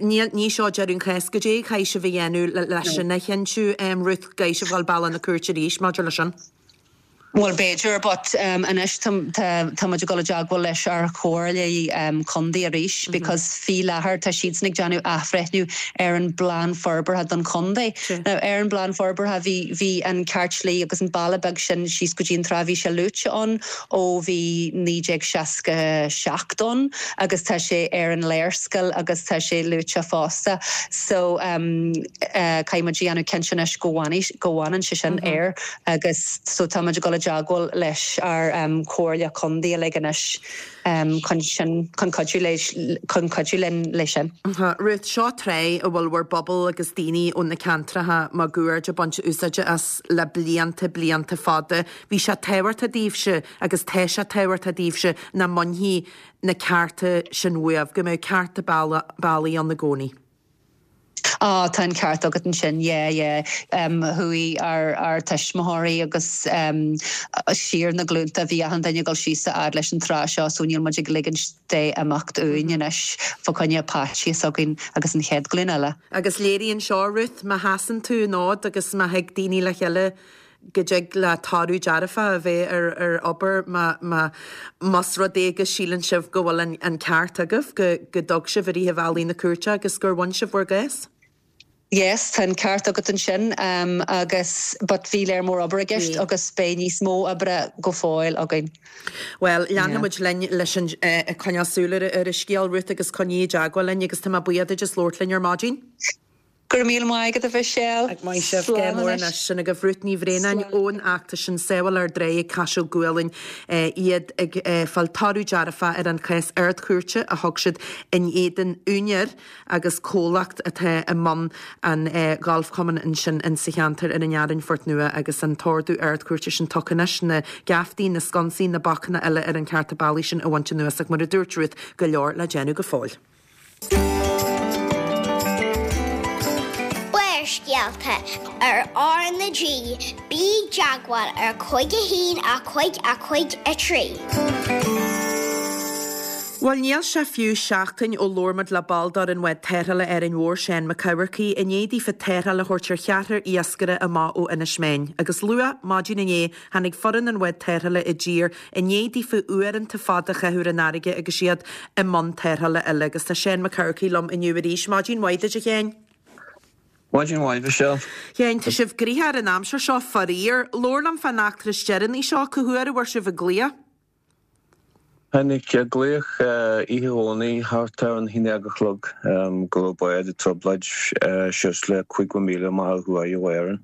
níl, ní seo deireadh an chás. Goidé a chaithfidh sibh a dhéanamh leis sin a chinntiú, Ruth, gcaithfidh sibh dul bealach na cúirte arís maidir leis sin? Bhuel, b'fhéidir, but anois tá muid ag dul i dteagmháil leis ár chomhairle contae arís because faoi láthair tá siadsan ag déanamh athbhreithniú ar an bplean forbartha don chontae. Now ar an bplean forbartha bhí bhí an ceart slí agus an bealach beag sin síos go dtí an trá bhí sé luaite ann ó bhí 1967 ann agus tá sé ar an léarscáil agus tá sé luaite fosta. So caithfidh muid a dhéanamh cinnte anois go bhfanfaidh go bhfanann sé sin air. Agus so tá muid ag dul i dteagmháil leis ár comhairle contae uilig anois chun sin, chun cuidiú le, chun cuidiú linn leis sin. Ruth, seo trá a bhfuil bhur bpobal agus daoine ó na ceantracha máguaird ag baint úsáide as le blianta, blianta fada. Bhí sé tábhachtach daoibhse agus tá sé tábhachtach daoibhse nach mbainfí na cearta sin uaibh, go mbeadh cearta bealaigh ann i gcónaí. Á, tá an ceart agat ansin, yeah, yeah. Chuaigh ár, ár tuismitheoirí agus siar na glúnta, bhí achan duine ag dul síos a fhad leis an trá seo so níl muid ag ligint dé imeacht uainn anois fá choinne páistí s'againn agus an chéad ghlúin eile. Agus léiríonn seo, Ruth, má sheasann tú an fhód agus má thig daoine le chéile go dtig le toradh dearfach a bheith ar ar obair má má más rud é go síleann sibh go bhfuil an an ceart agaibh, go go dtug sibh i rith an bhealaigh na cúirte agus gur bhain sibh bhur gcás. Yes, tá an ceart agat ansin agus but bhí léar mór obair i gceist agus beidh níos mó oibre go fóill againn. Bhuel, leanfaidh muid linn leis an, ag coinneáil súil ar an scéal, Ruth, agus coinnigh i dteagmháil linn agus tá mé buíoch duit as labhairt linn ar maidin. Go raibh míle maith agat a Mhichelle. Ag maith sibh. Slán mór anois. Sin agaibh Ruth Ní Bhraonáin ón fheachtas sin Sábháil Ár dTráigh ag Caiseal Gualainn. Iad ag fáil toradh dearfach ar an chás Ard-Chúirte a thug siad in éadan úinéir agus comhlacht atá i mbun an ghalfchumainn ansin in sa cheantar ar an Fhearainn Phort Nua agus an t-ordú Ard-Chúirte sin tugtha anois, na geaftaí, na sconsaí, na bacanna eile ar an cheárta bealaigh sin a bhaint anuas ach mar a dúirt Ruth, go leor le déanamh go fóill. Barrscéalta ar R na G, bí i dteagmháil ar 5 1 5 5 3. Bhuel, níl sé fiú seachtain ó labhair muid le ball d'fhoireann bhád tarrthála Árainn Mhór, Seán Mac Eamharcaigh, i ndiaidh daofa tarrtháil a thabhairt ar cheathrar iascaire amach ó Inis Meáin. Agus luath maidin inné, tháinig foireann an bhád tarrthála i dtír i ndiaidh daofa uaireanta fada a chaitheamh ar an fharraige agus iad i mbun tarrthála eile. Agus tá Seán Mac Eamharcaigh liom inniu arís. Maidin mhaith duit, a Sheáin. Maidin mhaith, Michelle. Sheáin, tá sibh gnoitheach ar an aimsir seo, faraor. Labhair liom fán eachtra is deireanaí seo, cá huair a bhfuair sibh an glaoch? Tháinig glaoch oíche Dhomhnaigh thart ar an haon déag a chlog go raibh bád i dtrioblóid suas le 50 míle amach ó thuaidh ó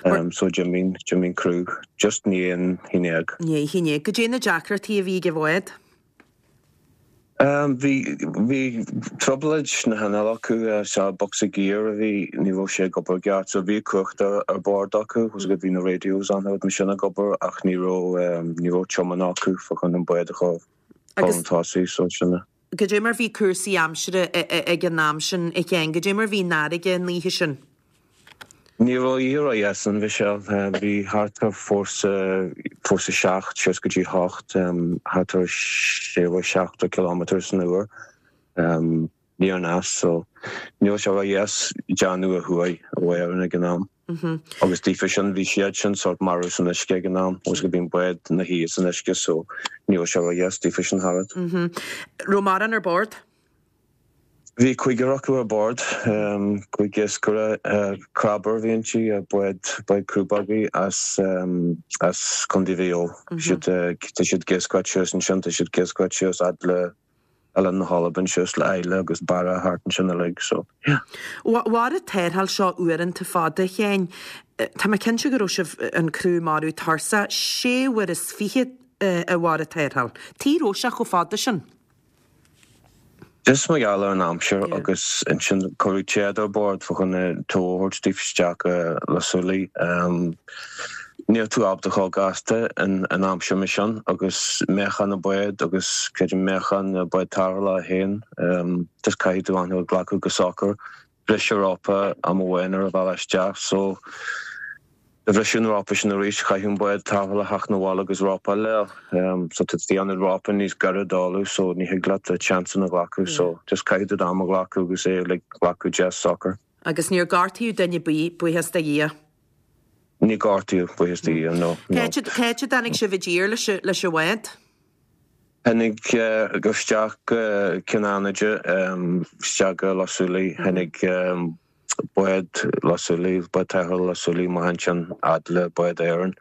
Árainn. So d'imigh, d'imigh an criú just i ndiaidh an haon déag. Ndiaidh a haon déag. Goidé na deacrachtaí a bhí ag an bhád? Bhí, bhí trioblóid sna hinnill acu, sea, bocsa giar a bhí, ní raibh sé ag obair i gceart, so bhí cumhacht ar, ar bord acu, was bhí na radios an rud mar sin ag obair ach ní raibh, ní raibh tiomáint acu fá choinne an bád a chur Agus chun tosaigh, so sin é. goidé mar bhí cúrsaí aimsire ag an am sin, a Sheáin, goidé mar bhí an fharraige an oíche sin? Ní raibh oíche ródheas ann, Michelle. Bhí thart ar fórsa, fórsa 7 suas go dtí 8, thart ar 60 kilometre san uair. Aniar aneas, so ní raibh sé ródheas déanamh ó thuaidh ó Éirinn ag an am. Agus daofa sin, bhí siad sin sórt marbh san uisce ag an am, agus bhí an bád ina shuí san uisce, so ní raibh sé ródheas daofa sin tharat. Raibh mórán ar bord? Bhí cúigear acu ar bord, cúig iascaire, crabber a bhí inti, bád, bád crúbógaí as, as Contae Mhaigh Eo. Siad, tá siad ag iascaireacht suas ansin, tá siad ag iascaireacht suas fhad le Oileán na hAlban suas le Islay agus Barra thart ansin uilig, so yeah. Mhair an tarrtháil seo uaireanta fada, a Sheáin. Tá mé cinnte go raibh sibh, an criú marbh tuirseach, sé uair is fiche a mhair an tarrtháil. Tuige a raibh sé chomh fada sin? Just mar gheall ar an aimsir agus ansin cuireadh téad ar bord fá choinne tow a thabhairt daofa isteach go Loch Súilí. Níl tú ábalta chomh gasta in aimsir mar sin agus meáchan an bád agus creidim meáchan an bád tarrthála féin just caithfidh tú an rud a ghlacadh go socair. Bhris an rópa am amháin ar an bhealach isteach so do bhriseadh an rópa sin arís, chaithfeadh an bád tarrthála theacht 'na bhaile agus rópa eile a fháil. So tá tú ag déanamh rópa níos gaire d'fhálú so ní thig leat an chance sin a ghlacadh so just caithfidh tú d'am a ghlacadh agus é like glacadh deas socair. Agus níor gortaíodh duine ar bith, buíochas do Dhia. Níor gortaíodh, buíochas do Dhia, no, no. Cá háit a dtáinig sibh i dtír leis an bhád? Tháinig isteach go Cionn Fhánaide, isteach go Loch Súilí, tháinig bád Loch Súilí, bád tarrthála Loch Súilí amach ansin fhad le bád Éireann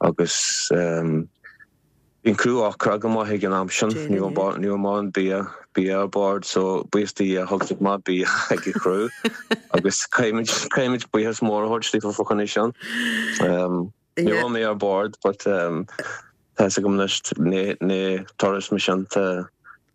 agus bhí an criú ocrach go maith ag an am sin, ní raibh ní raibh mórán bia, bia ar bord so buíochas do Dhia thug siad maith bia ag an chriú agus caithfimid, caithfimid buíochas mór a thabhairt daofa fá choinne sin. Ní raibh mé ar bord but tá fhios agam anois ní turas mar sin tá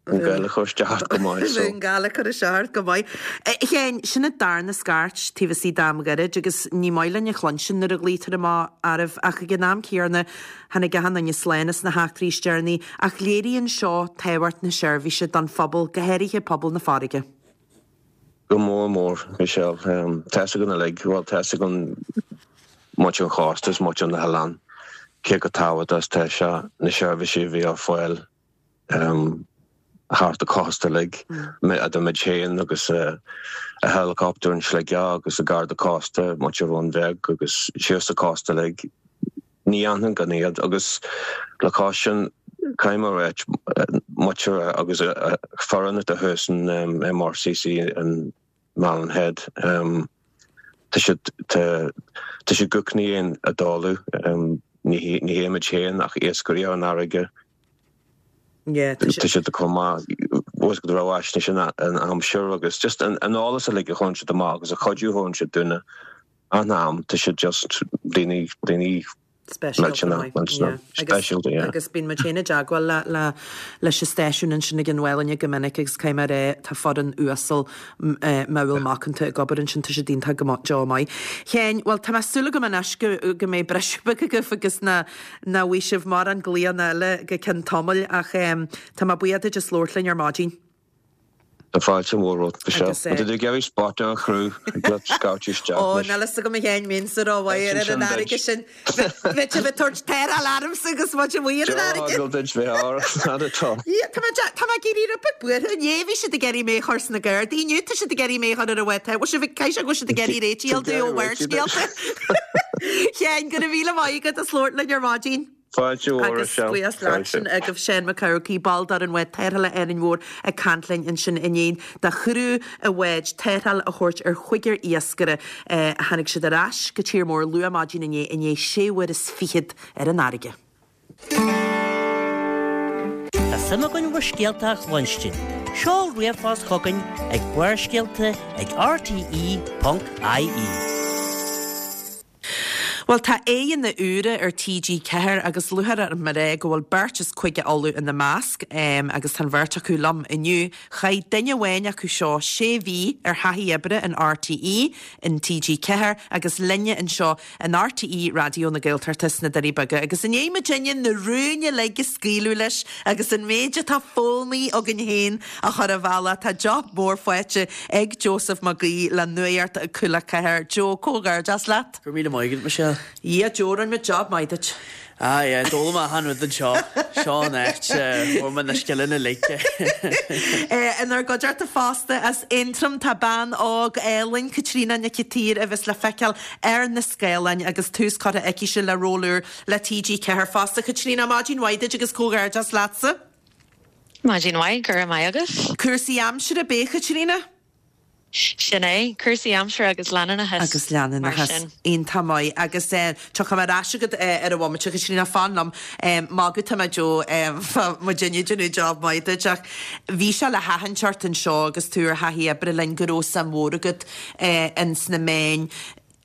an gal ag cur isteach ort go maith so. An gal ag cur isteach ort go maith. A Sheáin, sin an darna scairt taobh istigh d'am gairid agus ní maith linn a chluinstin nuair a ghlaoitear amach oraibh ach ag an am céanna tháinig achan duine slán as na heachtraí is deireanaí ach léiríonn seo tábhacht na seirbhíse don phobal, go háirithe pobal na farraige. Go mór mór, Michelle. Tá fhios againn uilig, bhuel, tá fhios againn muintir an chósta is muintir na hoileán, cé chomh tábhachtach is atá sé na seirbhísí a bhí ar fáil thart an chósta uilig, idir muid féin agus an helicopter in Sligeach agus an Garda Cósta, muintir Bhun Bheag agus síos an cósta uilig. Ní dhéanfainn gan iad agus le cois sin caithfidh mé a ráit, muintir agus foireann atá thuas in MRCC in Malin Head. Tá siad tá tá siad gcónaí ag foghlaim. Ní ní hé muid féin ach iascairí ar an fharraige. Yeah, tá Tá siad chomh maith bhfuil go raibh fhaisnéis an aimsir agus just an an eolas uilig a chuireann siad amach agus an cuidiú a thugann siad dúinne an am tá siad just daoine daoine Speisialta millteanach millteanach speisialta yeah. Agus bíonn muid féin i dteagmháil le le leis an stáisiún ansin ag an Mhálainne go minic agus caithfidh mé a rá tá foireann uasal modhúil macánta ag obair ansin tá siad iontach go deo maith. Sheáin, bhuel tá mé súil agam anois go go mbeidh briseadh beag agaibh agus ná nach bhfaighidh sibh mórán glaonna eile go ceann tamaill ach tá mé buíoch duit as labhairt linn ar maidin. Tá fáilte mhór romhat, Michelle. Agus Má tá tú ag iarraidh spota a chruthú, ag leat scairteadh isteach Ó, anois. níl fhios agam a Sheáin mbeinnse rómhaith ar an fharraige sin. Bheadh sibh ag tabhairt tarrtháil ormsa agus muid amuigh ar an fharraige. Seo duit bheith ár, not at all. Yeah, tá mé tá mé ag éirí rud beag buartha. Inné bhí siad ag iarraidh mé a chur sna Gardaí, inniu tá siad ag iarraidh mé a chur ar an bhád. Bhfuil sibh ag caithfidh sé go bhfuil siad ag iarraidh réitigh a fháil domh ó Bharrscéalta. Sheáin, go raibh míle maith agat as labhairt linn ar maidin. Fáilte mhór, Agus Michelle. buíochas leat Fáilte. sin agaibh Seán Mac Eamharcaigh, ball d'fhoireann bhád tarrthála Árainn Mhór ag caint linn ansin i ndiaidh do chriú an bháid tarrtháil a thabhairt ar chúigear iascaire. Tháinig siad ar ais go tír mór luath maidin inné i ndiaidh sé uair is fichead ar an fharraige. Tá suim againn bhur scéalta a chluinstin. Seol ríomhphost chugainn ag barrscéalta ag rte.ie. Bhuel, tá aghaidheanna úra ar TG4 agus lúcháir orm a rá go bhfuil beirt as Cúige Uladh ina measc agus tá an bheirt acu liom inniu. Chaith duine amháin acu seo sé mhí ar thaithí oibre in RTÉ, in TG4 agus linne anseo in RTÉ Raidió na Gaeltachta sna Doirí Beaga agus i ndiaidh muidinne na rúin uilig a scaoileadh leis agus an méid atá foghlamtha againn féin a chur ar bhealach, tá job mór faighte ag Joseph Mac Aoidh le Nuacht Cúla 4. Joe, comhghairdeas leat! Go raibh míle maith agat, Michelle. Yeah, Joe, rinne muid job maith duit. Ah yeah, d'fhoghlaim mé achan rud anseo. Seo an áit a bhfuair mé na scileanna uilig. Inár gcuideachta fosta as Aontroim tá bean óg álainn, Caitríona Nic an tSaoir, a bheas le feiceáil ar na scáileáin agus tús curtha aicise le ról úr le TG4 fosta. Caitríona, maidin mhaith duit agus comhghairdeas leatsa. Maidin mhaith, go raibh maith agat. Cúrsaí aimsire, ab ea, Caitríona? Sin é, cúrsaí aimsire agus leanúnachas, Agus leanúnachas. mar sin. Iontach maith. Agus tiocfaidh mé ar ais chugat ar an bhomaite, a Chaitríona, fan liom. Magadh atá mé Joe, tá muidinne ag déanamh job maith duit ach bhí sé le haithint ort anseo agus tú ar thaithí oibre linn go raibh suim mhór agat ins na meáin.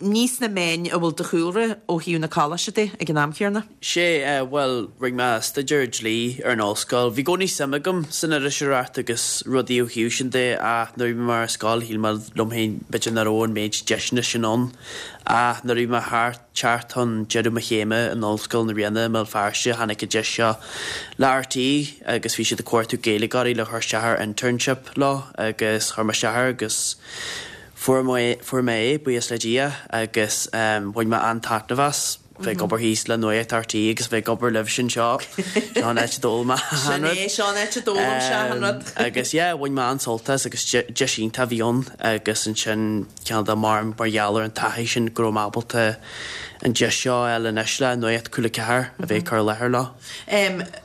Ní sna meáin a bhfuil do chúlra ó thaobh na coláiste de ag an am chéanna. Sé, bhuel, rinne mé staidéar dlí ar an ollscoil. Bhí i gcónaí suim agam san iriseoireacht agus rudaí ó thaobh sin de ach nuair a bhí mé ar scoil shíl mé liom féin b'fhéidir nach raibh an méid deiseanna sin ann. Ach nuair a bhí mé thart, teacht chun deireadh mo chéime in Ollscoil na Ríona i mBéal Feirste tháinig an deis seo le RTÉ agus bhí siad ag cuartú Gaeilgeoirí le cur isteach ar internship leo agus chuir mé isteach air agus Fuair mé, fuair mé é, buíochas le Dia, agus bhain mé an-taitneamh as bheith ag obair thíos le Nuacht RTÉ agus bheith ag obair libhse anseo. Seo an áit a d'fhoghlaim mé achan Sin rud. é, seo an áit a d'fhoghlaim sé achan rud. Agus yeah, bhain mé an-sult as agus deis iontach a bhí ann agus ansin cineál de mar, mar gheall ar an taithí sin go raibh mé ábalta an deis seo a fháil anois le Nuacht Cúla 4 a bheith ag cur i láthair leo.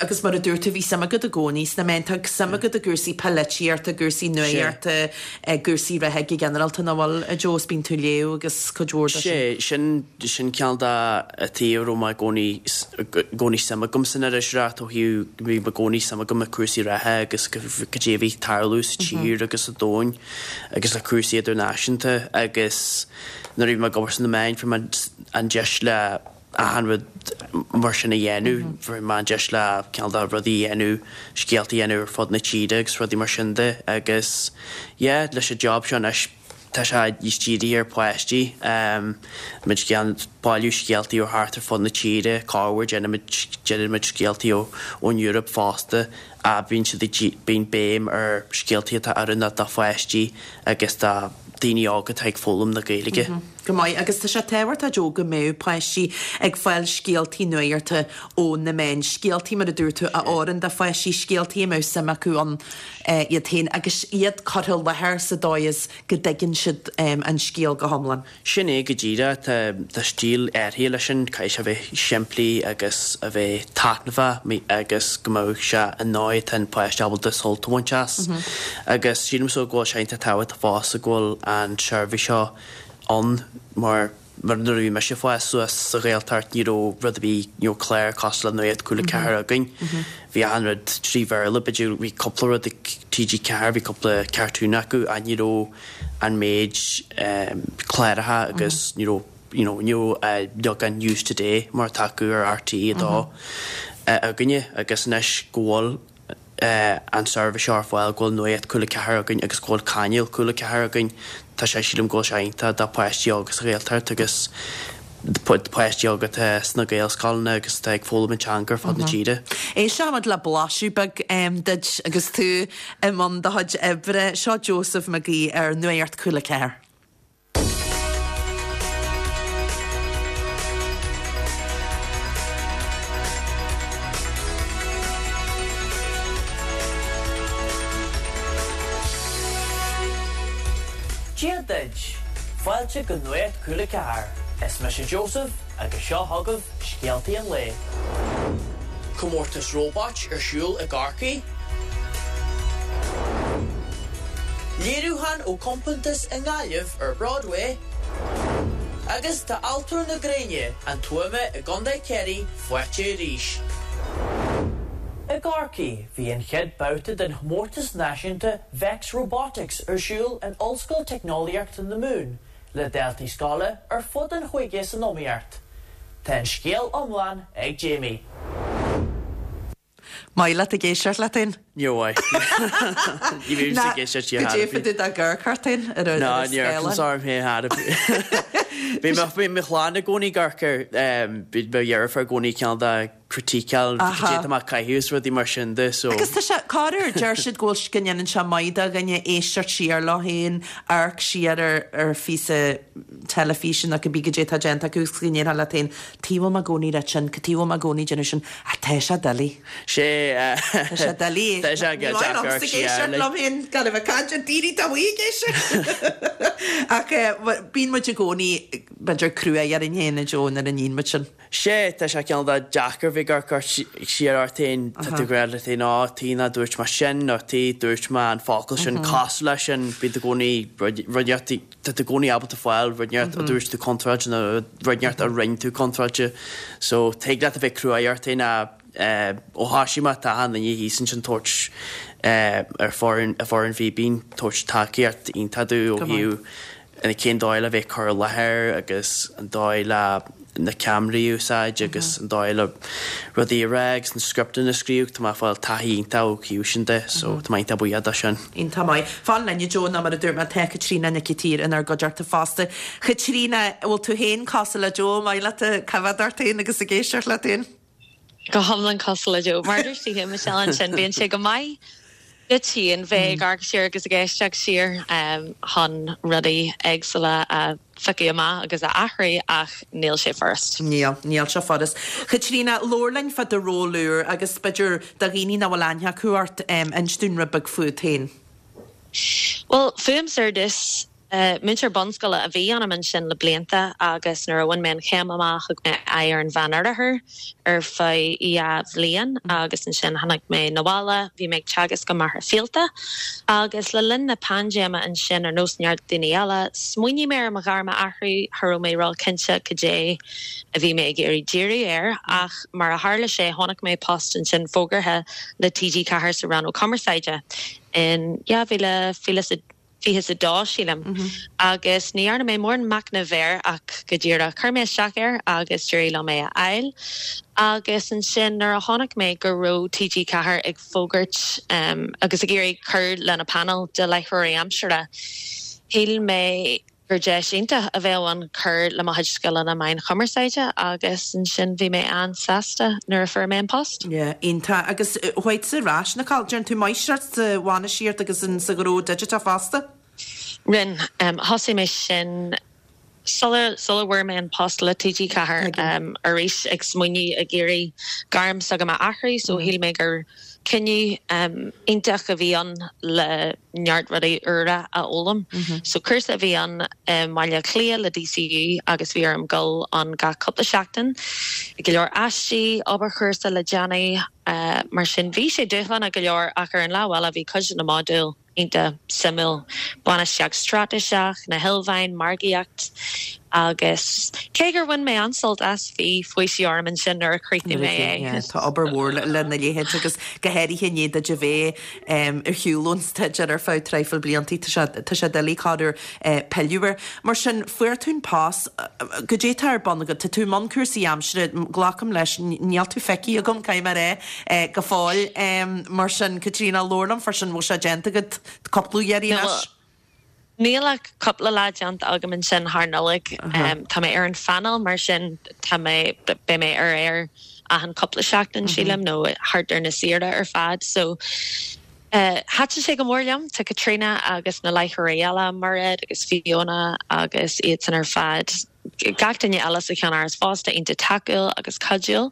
Agus mar a dúirt tú, bhí suim agat i gcónaí sna meáin. Tá suim agat i gcúrsaí polaitíochta, i gcúrsaí nuachta, i gcúrsaí reatha go ginearálta, nach bhfuil, a Joe? Is bíonn tú ag léamh agus cuid mhór de sin. Sé, sin, sin cineál de an taobh a raibh mé i gcónaí, i gcónaí suim agam san iriseoireacht ó thaobh, bhí i gcónaí suim agam i cúrsaí reatha agus cad é a bhí ag tarlú sa tír agus sa domhan agus le cúrsaí idirnáisiúnta agus nuair a bhí mé ag obair sna meáin fuair mé an deis le achan rud mar sin a dhéanamh. Fuair mé an deis le cineál de rudaí a dhéanamh, scéalta a dhéanamh ar fud na tíre agus rudaí mar sin de agus yeah leis an job seo anois tá sé níos dírithe ar pháistí. Muid ag bailiú scéaltaí ó thart ar fud na tíre, corruair déanaimid déanaimid scéaltaí ó ón Eoraip fosta ach bíonn siad ag bíonn béim ar scéaltaí atá oiriúnach do pháistí agus do daoine óga atá ag foghlaim na Gaeilge. Go maith. Agus tá sé tábhachtach, Joe, go mbeadh páistí ag fáil scéaltaí nuachta ó na meáin, scéaltaí, mar a dúirt tú, a oireann do pháistí, scéaltaí a mbeadh suim acu ann iad féin agus iad curtha i láthair sa dóigh is go dtuigeann siad an scéal go hiomlán. Sin é go díreach. Tá stíl áirithe leis sin, caithfidh sé a bheith simplí agus a bheith taitneamhach agus go mbeadh sé i ndóigh atá an páiste ábalta sult a bhaint as. Agus sílimse go bhfuil sé iontach tábhachtach fosta go bhfuil an tseirbhís seo. ann mar mar nuair a bhí mise ag fás suas sa Ghaeltacht ní raibh rud ar bith, ní raibh clár cosúil le Nuacht Cúla 4 againn. Bhí achan rud trí Bhéarla, b'fhéidir bhí cúpla rud ag TG4, bhí cúpla cartoon acu ach ní raibh an méid cláracha agus ní raibh you know ní raibh beagán News Today mar atá acu ar RTÉ 2 againne agus anois go bhfuil an seirbhís seo ar fáil, go bhfuil Nuacht Cúla 4 againn agus go bhfuil cainéal Cúla 4 againn, tá sé, sílim go bhfuil sé iontach do pháistí óga sa Ghaeltacht agus do pháistí óga atá sna Gaelscoileanna agus atá ag foghlaim an teanga ar fud na tíre. Éisteoimid le blaiseadh beag duit agus tú i mbun do chuid oibre. Seo Joseph Mac Aoidh ar Nuacht Cúla 4. Dia duit! Fáilte go Nuacht Cúla 4. Is mise Joseph agus seo chugaibh scéaltaí an lae. Comórtas róbait ar siúl i gCorcaigh. Léiriúchán ó compántas i nGaillimh ar Broadway. Agus tá Altóir na Gréine, an Tuama i gContae Chiarraí faighte arís. I gCorcaigh, bhí an chéad babhta den chomórtas náisiúnta Vex Robotics ar siúl in Ollscoil Teicneolaíochta na Mumhan le daltaí scoile ar fud an chúige san iomaíocht. Tá an scéal iomlán ag Jamie. Maith leat ag éisteacht leat féin? Níor mhaith. Ní bhím ag éisteacht siar Go dté tú dá gcur ort féin ar an Ná, ní amharcaim orm féin thar a Bhí mo chlann i gcónaí ag amharc air, bhí mo dheirfiúr i gcónaí cineál de criticeáil cad é atá mé ag caitheamh is rudaí mar sin de so. Agus tá sé, corruair, deir siad go bhfuil, go ndéanann sé maith do dhuine éisteacht siar leo féin, amharc siar ar ar phíosa teilifíse nó cibé cad é atá déanta acu agus go ndéarfá leat féin, tuige a bhfuil mé i gcónaí ag rá sin, cad tuige a bhfuil mé i gcónaí ag déanamh sin, ach tá sé doiligh. Sé, Tá sé doiligh. Tá sé Ní maith liomsa ag éisteacht liom féin gan a bheith ag caint ar daoine atá amuigh ag éisteacht. Ach bíonn muid i gcónaí, b'fhéidir, crua orainn féin, a Joe, nuair a níonn muid sin. Sé, tá sé cineál de deacair bheith ag amharc siar ort féin, tá tú ag rá leat féin, á, tuige nár dúirt mé sin, nó tuige dúirt mé an focal sin cosúil leis sin, bíonn tú i gcónaí rud inteacht, tá tú i gcónaí ábalta fáil rud inteacht a dúirt tú contráilte nó rud inteacht a rinne tú contráilte. So, tig leat a bheith cruaidh ort féin ach ó thoisigh mé tá achan duine thíos ansin tabhairt ar foireann, foireann Fíbín, tabhairt tacaíocht iontach domh ó thaobh cén dóigh le bheith ag cur i láthair agus an dóigh le na ceamaraí a úsáid agus an dóigh le rudaí a rá agus na scripteanna a scríobh, tá mé ag fáil taithí iontach ó thaobh sin de so tá mé iontach buíoch de sin. Iontach maith. Fan linn a Joe nó mar a dúirt mé tá Caitríona Nic an tSaoir inár gcuideachta fosta. Chaitríona, an bhfuil tú féin cosúil le Joe, maith leat ag coimhéad ort féin agus ag éisteacht leat féin? Go hiomlán cosúil le Joe. Mar a dúirt tú féin Michelle ansin, bíonn sé go maith duit féin bheith ag amharc siar agus ag éisteacht siar chun rudaí éagsúla a phiocadh amach agus a athrú ach níl sé furast. Níl, níl sé furast. Chaitríona, labhair linn fá do ról úr agus b'fhéidir do dhaoine nach bhfuil aithne acu ort, inis dúinn rud beag fút féin. Bhuel, fúmsa ar dtús, Múinteoir bunscoile a bhí ionam ansin le blianta agus nuair a bhain mé an chéim amach thug mé aghaidh ar an Mheánoirthear ar feadh dhá bhliain agus ansin tháinig mé 'na bhaile. Bhí mé ag teagasc i Machaire Fíolta agus le linn na paindéime ansin, ar nós neart daoine eile, smaoinigh mé ar mo ghairm a athrú. Cha raibh mé ró-chinnte cad é a bhí mé ag iarraidh díriú air ach mar a tharla sé chonaic mé post ansin fógartha le TG4 sa rannóg cumarsáide in 2020 22, sílim, agus ní dhearna mé mórán machnaimh air ach go díreach chuir mé isteach air agus d'éirigh liom é a fháil. Agus ansin nuair a chonaic mé go raibh TG4 ag fógairt agus ag iarraidh cur lena painéal de láithreoirí aimsire, shíl mé gur deis iontach a bheadh ann cur le mo chuid scileanna meáin chumarsáide agus ansin bhí mé an-sásta nuair a fuair mé an post. Yeah, iontach. Agus chuaigh tú ar ais, Nicole, déanann tú máistreacht sa bhainistíocht agus in sa ghnó digiteach fosta? Rinne. Thosaigh mé sin sula sula bhfuair mé an post le TG4. Arís ag smaoineamh ag iarraidh gairm s'agam a athrú so shíl mé gur cinneadh iontach a bhí ann le neart rudaí úra a fhoghlaim. So cúrsa a bhí ann i mBaile Átha Cliath le DCU agus bhí orm dul ann gach cúpla seachtain. Go leor aistí, obair chúrsa le déanamh, mar sin bhí sé dúshlánach go leor ach ar an lámh eile bhí cuid de na modúil. Iontach suimiúil. Bainistíocht straitéiseach, na hilmheáin, margaíocht agus cé gur bhain mé an-sult as, bhí faoiseamh orm ansin nuair a chríochnaigh mé é. Tá obair mhór lena leithéid agus go háirithe i ndiaidh duit a bheith ar shiúl ón staidéar ar feadh traidhfil bliantaí, tá sé tá sé doiligh corruair pilleadh air. Mar sin, fuair tú an post, goidé tá ar bun agat? Tá tú i mbun cúrsaí aimsire, glacaim leis, níl tú feicthe agam, caithfidh mé a rá, go fóill. Mar sin, Caitríona, labhair liom fá sin, bhfuil sé déanta agat cúpla iarraidh anois? Níl ach cúpla lá déanta agam ansin thar Nollaig. Tá mé ar an phainéal mar sin tá mé, beidh mé ar aer achan cúpla seachtain sílim nó thart ar na saoire ar fad. So thaitin sé go mór liom. Tá Caitríona agus na láithreoirí eile, Mairéad agus Fiona agus iadsan ar fad, gach duine eile sa cheannáras fosta, iontach tacúil agus cuidiúil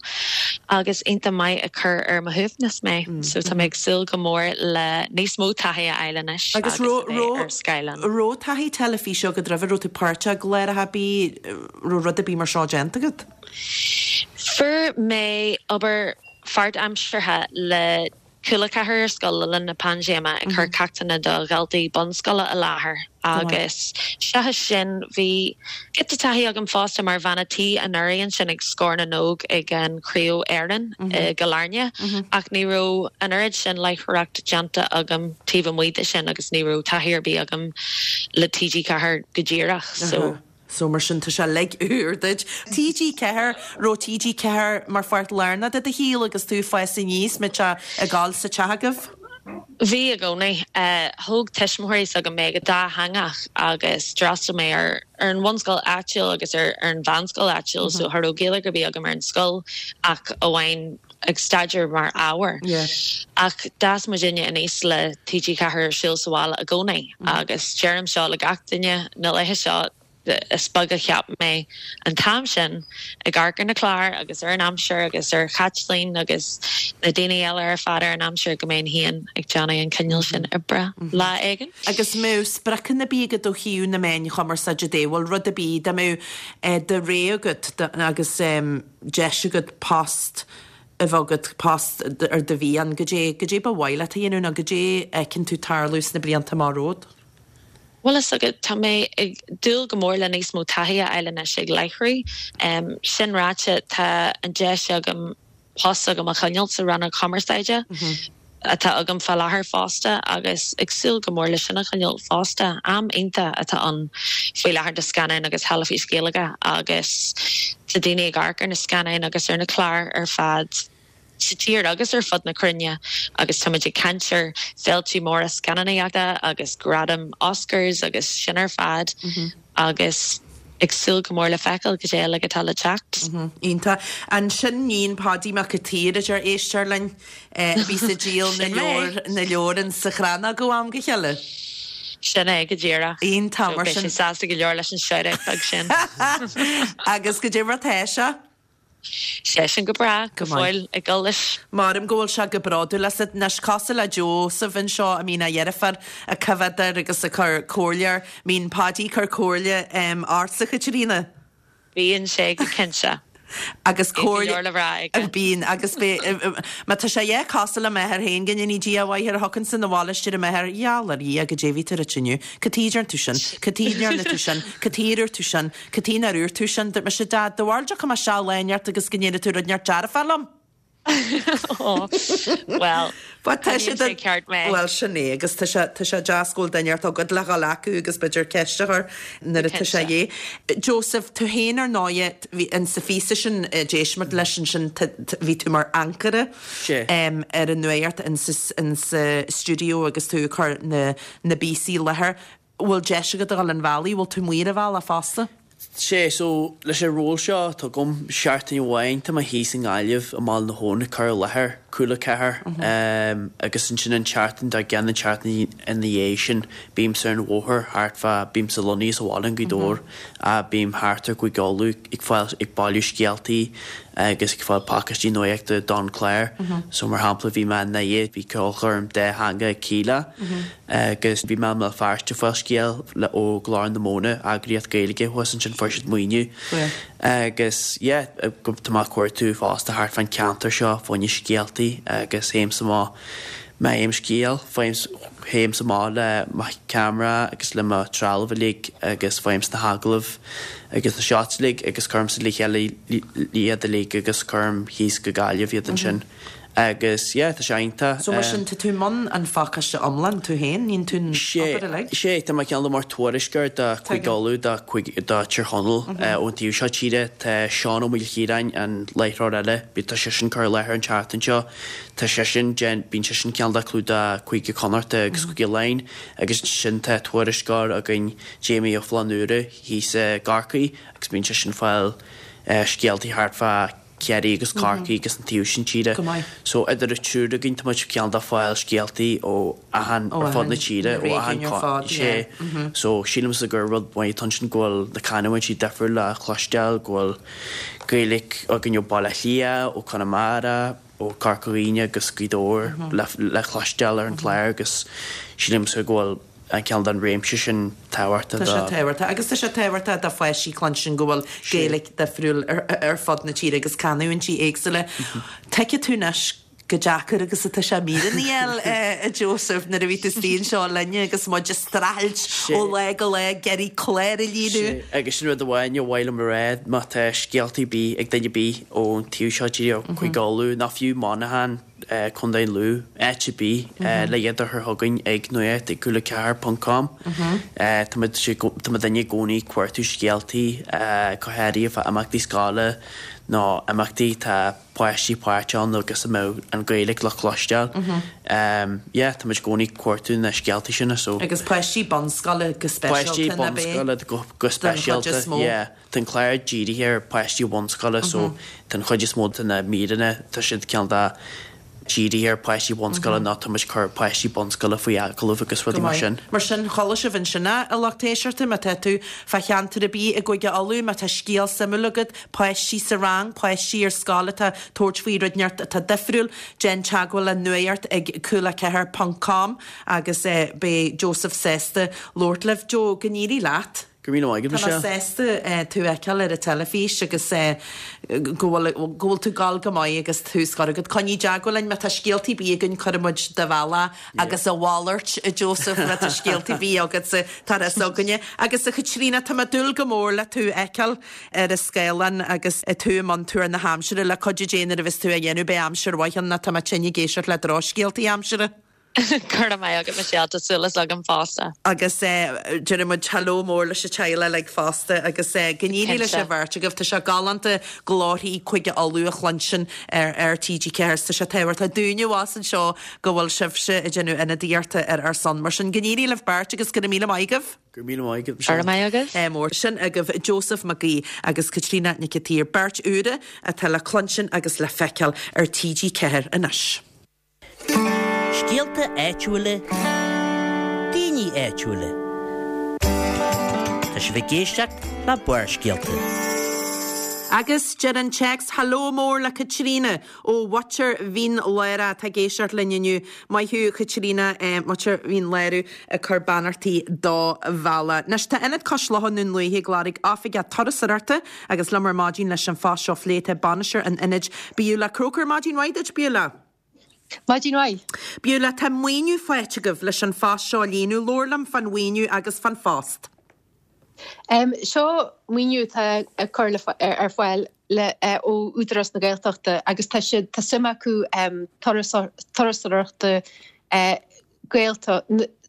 agus iontach maith ag cur ar mo shuaimhneas mé. So tá mé ag súil go mór le níos mó taithí a fháil anois agus a bheith ar scáileán. Raibh taithí teilifíse agat roimhe? Raibh tú páirteach i gcláracha ar bith? Raibh rud ar bith mar seo déanta agat? Fuair mé obair pháirtaimseartha le Cúla 4 ar scoil le linn na paindéime ag cur ceachtanna do dhaltaí bunscoile i láthair agus seachas sin bhí giota taithí agam fosta mar bhean a' tí anuraidh ansin ag Scór na nÓg ag an Chraobh Éireann i gCill Airne ach ní raibh an oiread sin láithreoireacht déanta agam taobh amuigh de sin agus ní raibh taithí ar bith agam le TG4 go díreach so. So mar sin tá sé uilig úr duit. TG4, raibh TG4 mar pháirt lárnach de do shaol agus tú ag fás aníos, mbeadh sé ag gabháil sa teach agaibh? Bhí i gcónaí. Thóg tuismitheoirí s'agam mé go dátheangach agus d'fhreastail mé ar an bhunscoil áitiúil agus ar an mheánscoil áitiúil so cha raibh Gaeilge ar bith agam ar an scoil ach amháin ag staidéar mar ábhar. Ach d'fhás muidinne aníos le TG4 ar siúl sa bhaile i gcónaí agus deirim seo le gach duine na laethe seo, is beag a cheap mé an t-am sin ag amharc ar na cláir agus ar an aimsir agus ar Chaitlín agus na daoine eile ar fad ar an aimsir go mbeinn féin ag déanamh an cineál sin oibre lá éigin. Agus mbeadh spriocanna ar bith agat ó thaobh na meáin chumarsáide de, bhfuil rud ar bith, dá mbeadh do rogha agat agus deis agat post a bheith agat, post ar do mhian, goidé, goidé ba mhaith leat a dhéanamh nó goidé a fheiceann tú tarlú sna blianta amach romhat? Bhuel, is agat, tá mé ag dúil go mór le níos mó taithí a fháil anois ag láithriú. Sin ráite, tá an deis agam post s'agam a choinneáil sa rannóg chumarsáide atá agam fá láthair fosta agus ag súil go mór le sin a choinneáil fosta. Am iontach atá ann faoi láthair do scannáin agus theilifís Ghaeilge agus tá daoine ag amharc ar na scannáin agus ar na cláir ar fad sa tír agus ar fud na cruinne agus táimid ag caint ar féiltí móra scannánaíochta agus gradaim Oscars agus sin ar fad agus ag súil go mór le feiceáil cad é uilig atá le teacht. Iontach. Ansin níon Pháidí Mac a' tSaoir a deir éisteoir linn a bhíos ag díol na leabhar na leabhar in sa Chrannóg ó am go chéile. Sin é go díreach. Iontach mar sin. Beidh sé sásta go leor leis an shout-out beag sin. Agus goidé mar tá sé? Seisean go breá, go fóill ag dul leis. Maram go bhfuil sé go bródúil asat. Anois, cosúil le Joseph anseo, a mbíonn a dheirfiúr ag coimhéad air agus ag cur comhairle air, mbíonn Páidí ag cur comhairle ortsa, a Chaitríona? Bíonn sé go cinnte. Agus comhairle. Bíonn go leor le rá aige. Bíonn, agus bí, má tá sé yeah cosúil le m'athair féin, go ndéanaí Dia a mhaith air, a thiocfainnse 'na bhaile is deir m'athair, gheall ar Dhia, goidé a bhí tú ag ráit inniu, cad chuige a ndearna tú sin, cad chuige a ndearna tú sin, cad chuige ar dhúirt tú sin, Cad chuige nár dhúirt tú sin? Dúirt mise, Dad, do bharúil dtiocfaidh mé isteach lá inteacht agus go ndéanfaidh tú rud inteacht dearfach liom? Bhuel, But tá sé coinníonn sé ceart mé. Bhuel, sin é, agus tá sé, tá sé deas go bhfuil duine inteacht agat le dhul acu agus b'fhéidir ceist a chur nuair atá sé Cinnte. dhé. Joseph, tú féin ar ndóighe, bhí, in sa phíosa sin a d'éist muid leis ansin, bhí tú mar ancaire Sé. ar an nuacht in sa, in sa stiúideo agus tú ag cur na, na bpíosaí i láthair. Bhfuil deis agat a dhul an bhealaigh? Bhfuil tú amuigh ar an bhealach fosta? Sé, so, leis an ról seo atá agam, seachtain amháin tá mé thíos i nGaillimh i mBaile na hAbhann ag cur i láthair Cúla 4 agus ansin an tseachtain dár gcionn, an tseachtain ina dhiaidh sin, bímse ar an bhóthar thart fá, bímse lonnaithe sa bhaile i nGaoth Dobhair ach bím thart ar Chúige Uladh ag fáil, ag bailiú scéaltaí agus ag fáil pacáistí nuachta don chlár. So mar shampla bhí mé i nDoire, bhí ceolchoirm dátheangach ag Kíla. Agus bhí mé i mBéal Feirste ag fáil scéal le ó Glór na Móna, eagraíocht Gaeilge thuas ansin fuair siad maoiniú. Agus yeah, tá mé ag cuartú fosta thart fán ceantar seo fá choinne scéaltaí agus théimse amach. Má fhaighim scéal, théimse amach le mo cheamara agus le mo trealamh uilig agus faighimse na hagallaimh agus na shots uilig agus cuirimse le chéile iad uilig agus cuirim thíos go Gaillimh iad ansin. Agus yeah, tá sé iontach. So mar sin, tá tú i mbun an phacáiste iomlán tú féin, níonn tú an obair uilig? Sé, tá mé cineál de mar tuairisceoir do Chúige Uladh, do Tír Chonaill ón taobh seo tíre. Tá Seán Ó Maoilchiaráin, an láithreoir eile, tá seisean ag cur i láthair an tseachtain seo. Tá seisean, bíonn seisean cineál de ag clúdach Cúige Connachta agus Cúige Laighean agus ansin tá tuairisceoir againn, Jamie Ó Flannúra, thíos i gCorcaigh agus bíonn seisean ag fáil scéaltaí thart fá Chiarraí agus Corcaigh agus an taobh sin tíre. Go maith. So idir an triúr againn tá muid cineál de ag fáil scéaltaí ó achan, ar fud na tíre, ó achan, sé. So sílimse gur rud maith atá ansin go bhfuil na canúintí difriúil le cloisteáil, go bhfuil Gaeilge againn ó Baile Átha Cliath, ó Conamara, ó Corca Dhuibhne agus Gaoth Dobhair le cloisteáil ar an chlár agus sílimse go bhfuil an cineál den réimse sin tábhachtach do. Tá sé tábhachtach agus tá sé tábhachtach do pháistí cluinstin go bhfuil Gaeilge difriúil ar fud na tíre agus canúintí éagsúla. Tuigfidh tú anois chomh deacair agus atá sé míreanna a fháil, a Joseph, nuair a bhí tú istigh anseo linne agus muid ag streachailt ó lá go lá ag iarraidh clár a líonadh. Sea, agus sin rud amháin ar mhaith liom a rá, má tá scéaltaí ar bith ag duine ar bith ón taobh seo tíre, ó Chúige Uladh, nó fiú Monaghan, Contae Lú, áit ar bith, le iad a chur chugainn ag nuacht ag cúla4 ponc com. Tá muid, tá muidinne i gcónaí ag cuartú scéaltaí, go háirithe fá imeachtaí scoile nó imeachtaí atá páistí páirteach ann agus a mbeadh an Ghaeilge le cloisteáil. Yeah, tá muid i gcónaí ag cuartú na scéaltaí sin so. Agus páistí bunscoile go speisialta, Páistí bunscoile go Den chuid is speisialta, mó. yeah. Tá an clár dírithe ar pháistí bunscoile so tá an chuid is mó de na míreanna, tá siad cineál de dírithe ar pháistí bunscoile nó tá muid ag cur páistí bunscoile faoi agallamh agus rudaí mar sin. Mar sin, chuala sibh ansin é, a lucht éisteachta, má tá tú fá cheantar ar bith i gCúige Uladh, má tá scéal suimiúil agat, páistí sa rang, páistí ar scoil atá ag tabhairt faoi rud inteacht atá difriúil, déan teagmháil le nuacht ag cúla4 ponc com agus beidh Joseph sásta labhairt libh. Joe, go n-éirí leat. Go raibh míle maith agat, Tá mé Michelle. sásta tú a fheiceáil ar an teilifís agus go bhfuil go bhfuil tú ag gabháil go maith agus tús curtha agat. Coinnigh i dteagmháil linn má tá scéaltaí ar bith againn cuirfidh muid do bhealach agus a mhalairt, a Joseph, má tá scéaltaí ar bith agatsa tá a fhios againne. Agus a Chaitríona, tá mé ag dúil go mór le tú a fheiceáil ar an scáileán agus tú i mbun tuar na haimsire le cuidiú Dé nuair a bheas tú á dhéanamh beidh aimsir mhaith ann nó tá mé tinn ag éisteacht le drochscéaltaí aimsire. Go raibh maith agat Michelle, tá súil agam fosta. Agus déarfaidh muid hello mór leis an teaghlach uilig fosta agus go n-éirí leis an bheirt agaibh. Tá sé galánta glórthaí Chúige Uladh a chluinstin ar ar TG4 is tá sé tábhachtach dúinne abhus anseo go bhfuil sibhse ag déanamh ionadaíochta ar ár son. Mar sin go n-éirí libh beirt agus go raibh míle maith agaibh. Go raibh míle maith agat Michelle. Go raibh maith agaibh. Mór. Sin agaibh Joseph Mac Aoidh agus Caitríona Nic an tSaoir, beirt úra atá le cluinstin agus le feiceáil ar TG4 anois. Scéalta áitiúla, daoine áitiúla. Tá sibh ag éisteacht le Barrscéalta. Agus deir an téacs, Hello mór le Caitríona ó Mhuintir Mhín Lárach atá ag éisteacht linn inniu. Maith thú Chaitríona, Muintir Mhín Lárach ag cur beannachtaí do bhealach. Anois tá Ionad Cois Locha i nDún Lúiche ag lorg oifigeach turasóireachta agus liom ar maidin leis an phost seo a phlé tá bainisteoir an ionaid Beulah Croker. Maidin mhaith duit Beulah. Maidin mhaith. Beulah, tá maoiniú faighte agaibh leis an phost seo a líonadh. Labhair liom fán mhaoiniú agus fán phost. Seo maoiniú atá á cur ar fáil ó Údarás na Gaeltachta agus tá siad, tá suim acu turasóireachta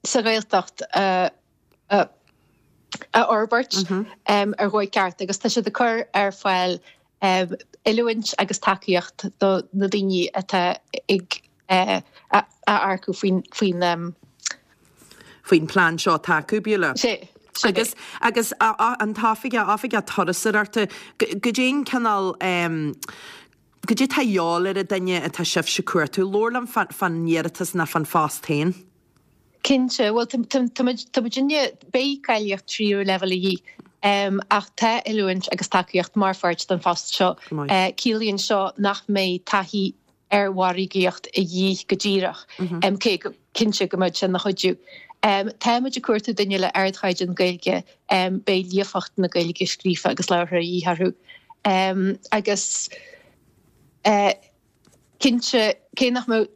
sa Ghaeltacht a a fhorbairt ar dhóigh ceart agus tá siad ag cur ar fáil oiliúint agus tacaíocht do na daoine atá ag á earcú faoin faoin faoin plean seo atá acu, Beulah. Sea. Agus agus an t-oifigeach, oifigeach turasóireachta, goidé an cineál goidé atá a dhíobháil ar an duine atá sibhse ag cuartú. Labhair liom fán iarratas ná fán phost féin. Cinnte. Bhuel, tá muid, tá muidinne, beidh cáilíocht tríú leibhéal a dhíth, ach tá oiliúint agus tacaíocht mar pháirt den phost seo. Ciallaíonn seo nach mbeidh taithí ar mhargaíocht a dhíth go díreach, cé go cinnte go mbeidh sé ina chuidiú. Tá muid ag cuartú duine le ardchaighdeán Gaeilge, beidh líofacht na Gaeilge scríofa agus labhartha a dhíth orthu. Agus cinnte, cé nach mbeadh.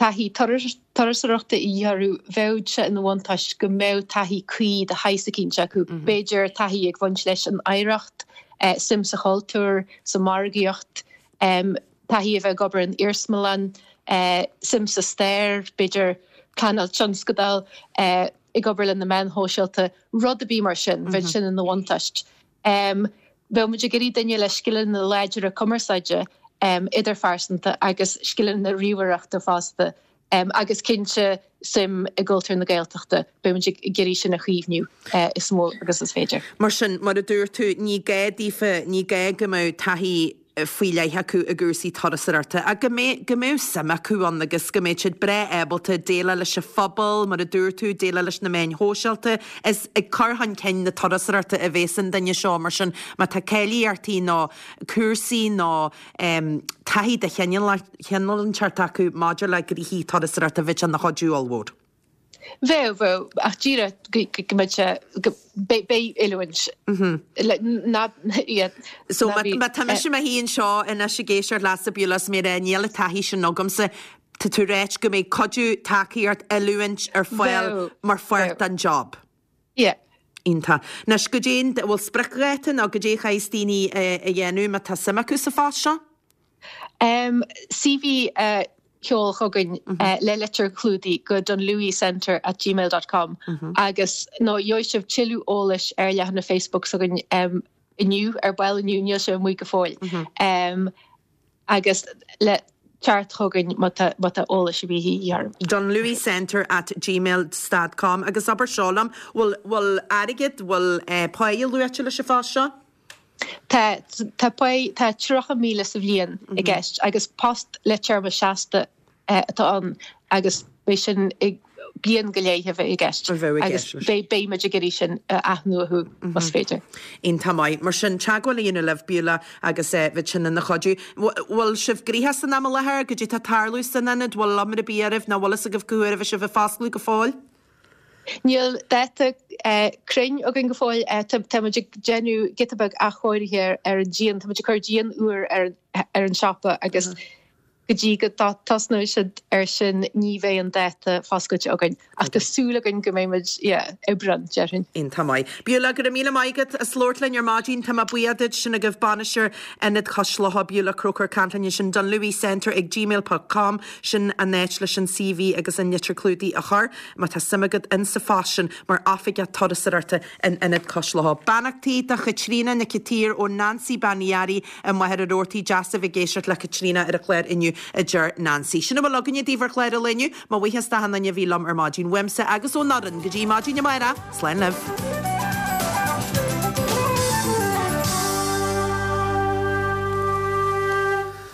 Taithí turasóireachta a dhíth orthu, bheadh sé ina bhuntáiste go mbeadh taithí cuí de shaghas eicínt acu, b'fhéidir taithí ag bhaint leis an oidhreacht, suim sa chultúr, sa mhargaíocht, taithí a bheith ag obair in iarsmalann, suim sa stair, b'fhéidir pleanáil tionscadail, ag obair le na meáin shóisialta, rud ar bith mar sin, bheadh sin ina bhuntáiste. Bheadh muid ag iarraidh duine le scileanna láidre cumarsáide idirphearsanta agus scileanna ríomhaireachta fosta agus cinnte suim i gcultúr na Gaeltachta. Beidh muid ag iarraidh sin a chaomhnú is mó agus is féidir. Mar sin, mar a dúirt tú, ní gá daofa, ní gá go mbeadh taithí faoi leith acu i gcúrsaí turasóireachta ach go mbeadh, go mbeadh suim acu ann agus go mbeadh siad breá ábalta déileáil leis an phobal, mar a dúirt tú, déileáil leis na meáin shóisialta. Is ag cur chun cinn na turasóireachta a bhéas an duine seo, mar sin má tá cáilíochtaí nó cúrsaí nó taithí de chineál inteacht acu maidir le gnoithí turasóireachta bheadh sé ina chuidiú ollmhór. Bheadh, bheadh, ach díreach go mbeadh sé, go, beidh, beidh oiliúint le, ná, yeah, So ná bí, má tá mise i mo shuí anseo anois ag éisteacht leatsa Beulah is mé ag rá níl an taithí sin agamsa, tá tú ag ráit go mbeidh cuidiú, tacaíocht, oiliúint ar fáil Bheadh, mar pháirt bheadh. den job. Yeah. Iontach. Anois, goidé an, bhfuil spriocdháta nó goidé a chaithfeas daoine a dhéanamh má tá suim acu sa phost seo? CV a sheol chugainn le litir chlúdaigh go dunlewycentre at gmail dot com agus nó gheobhaidh sibh tuilleadh eolais ar leathanach Facebook s'againn inniu, ar ball inniu, níl sé amuigh go fóill. Agus le teacht chugainn má tá má tá eolas ar bith a dhíth oraibh. dunlewycentre at gmail stad com agus abair seo liom, bhfuil bhfuil airgead, bhfuil páighe luaite leis an phost seo? Tá, tá páighe, tá 30,000 sa bhliain i gceist agus post le téarma seasta atá ann agus beidh sin i bliain go leith a bheidh i gceist agus beidh, beidh muid ag iarraidh sin a athnuathú más féidir. Iontach maith. Mar sin, teagmháil a dhéanamh libh, Beulah, agus bheadh sin ina chuidiú. Bhfuil sibh gnoitheach san am i láthair? Goidé tá ag tarlú san ionad? Bhfuil iomrá ar bith oraibh nó bhfuil fhios agaibh cá huair a bheidh sibh ag foscladh go fóill? Níl dáta cruinn againn go fóill. Tá muid ag déanamh giota beag athchóirithe ar an díon. Tá muid ag cur díon úr ar an siopa agus go dtí go dtosnóidh siad air sin ní bheidh an dáta foscailte againn. Ach tá súil againn go mbeidh muid, yeah, Aibreán, déarfainn. Iontach maith. Beulah, go raibh míle maith agat as labhairt linn ar maidin. Tá mé buíoch duit. Sin agaibh bainisteoir Ionad Chois Locha, Beulah Croker, ag caint linn ansin, dunlewycentre ag gmail ponc com. Sin an áit leis an CV agus an litir clúdaigh a chur, má tá suim agat in sa phost sin mar Oifigeach Turasóireachta in Ionad Cois Locha. Beannachtaí do Chaitríona Nic an tSaoir ó Nancy Bean Uí Fhearraigh i Machaire Rabhartaigh. Deas a bheith ag éisteacht le Caitríona ar an chlár inniu, a deir Nancy. Sin a bhfuil againne daoibh ar chlár an lae inniu. Mo bhuíochas d'achan duine a bhí liom ar maidin. Uaimse agus ón fhoireann go dtí maidin amárach, slán libh.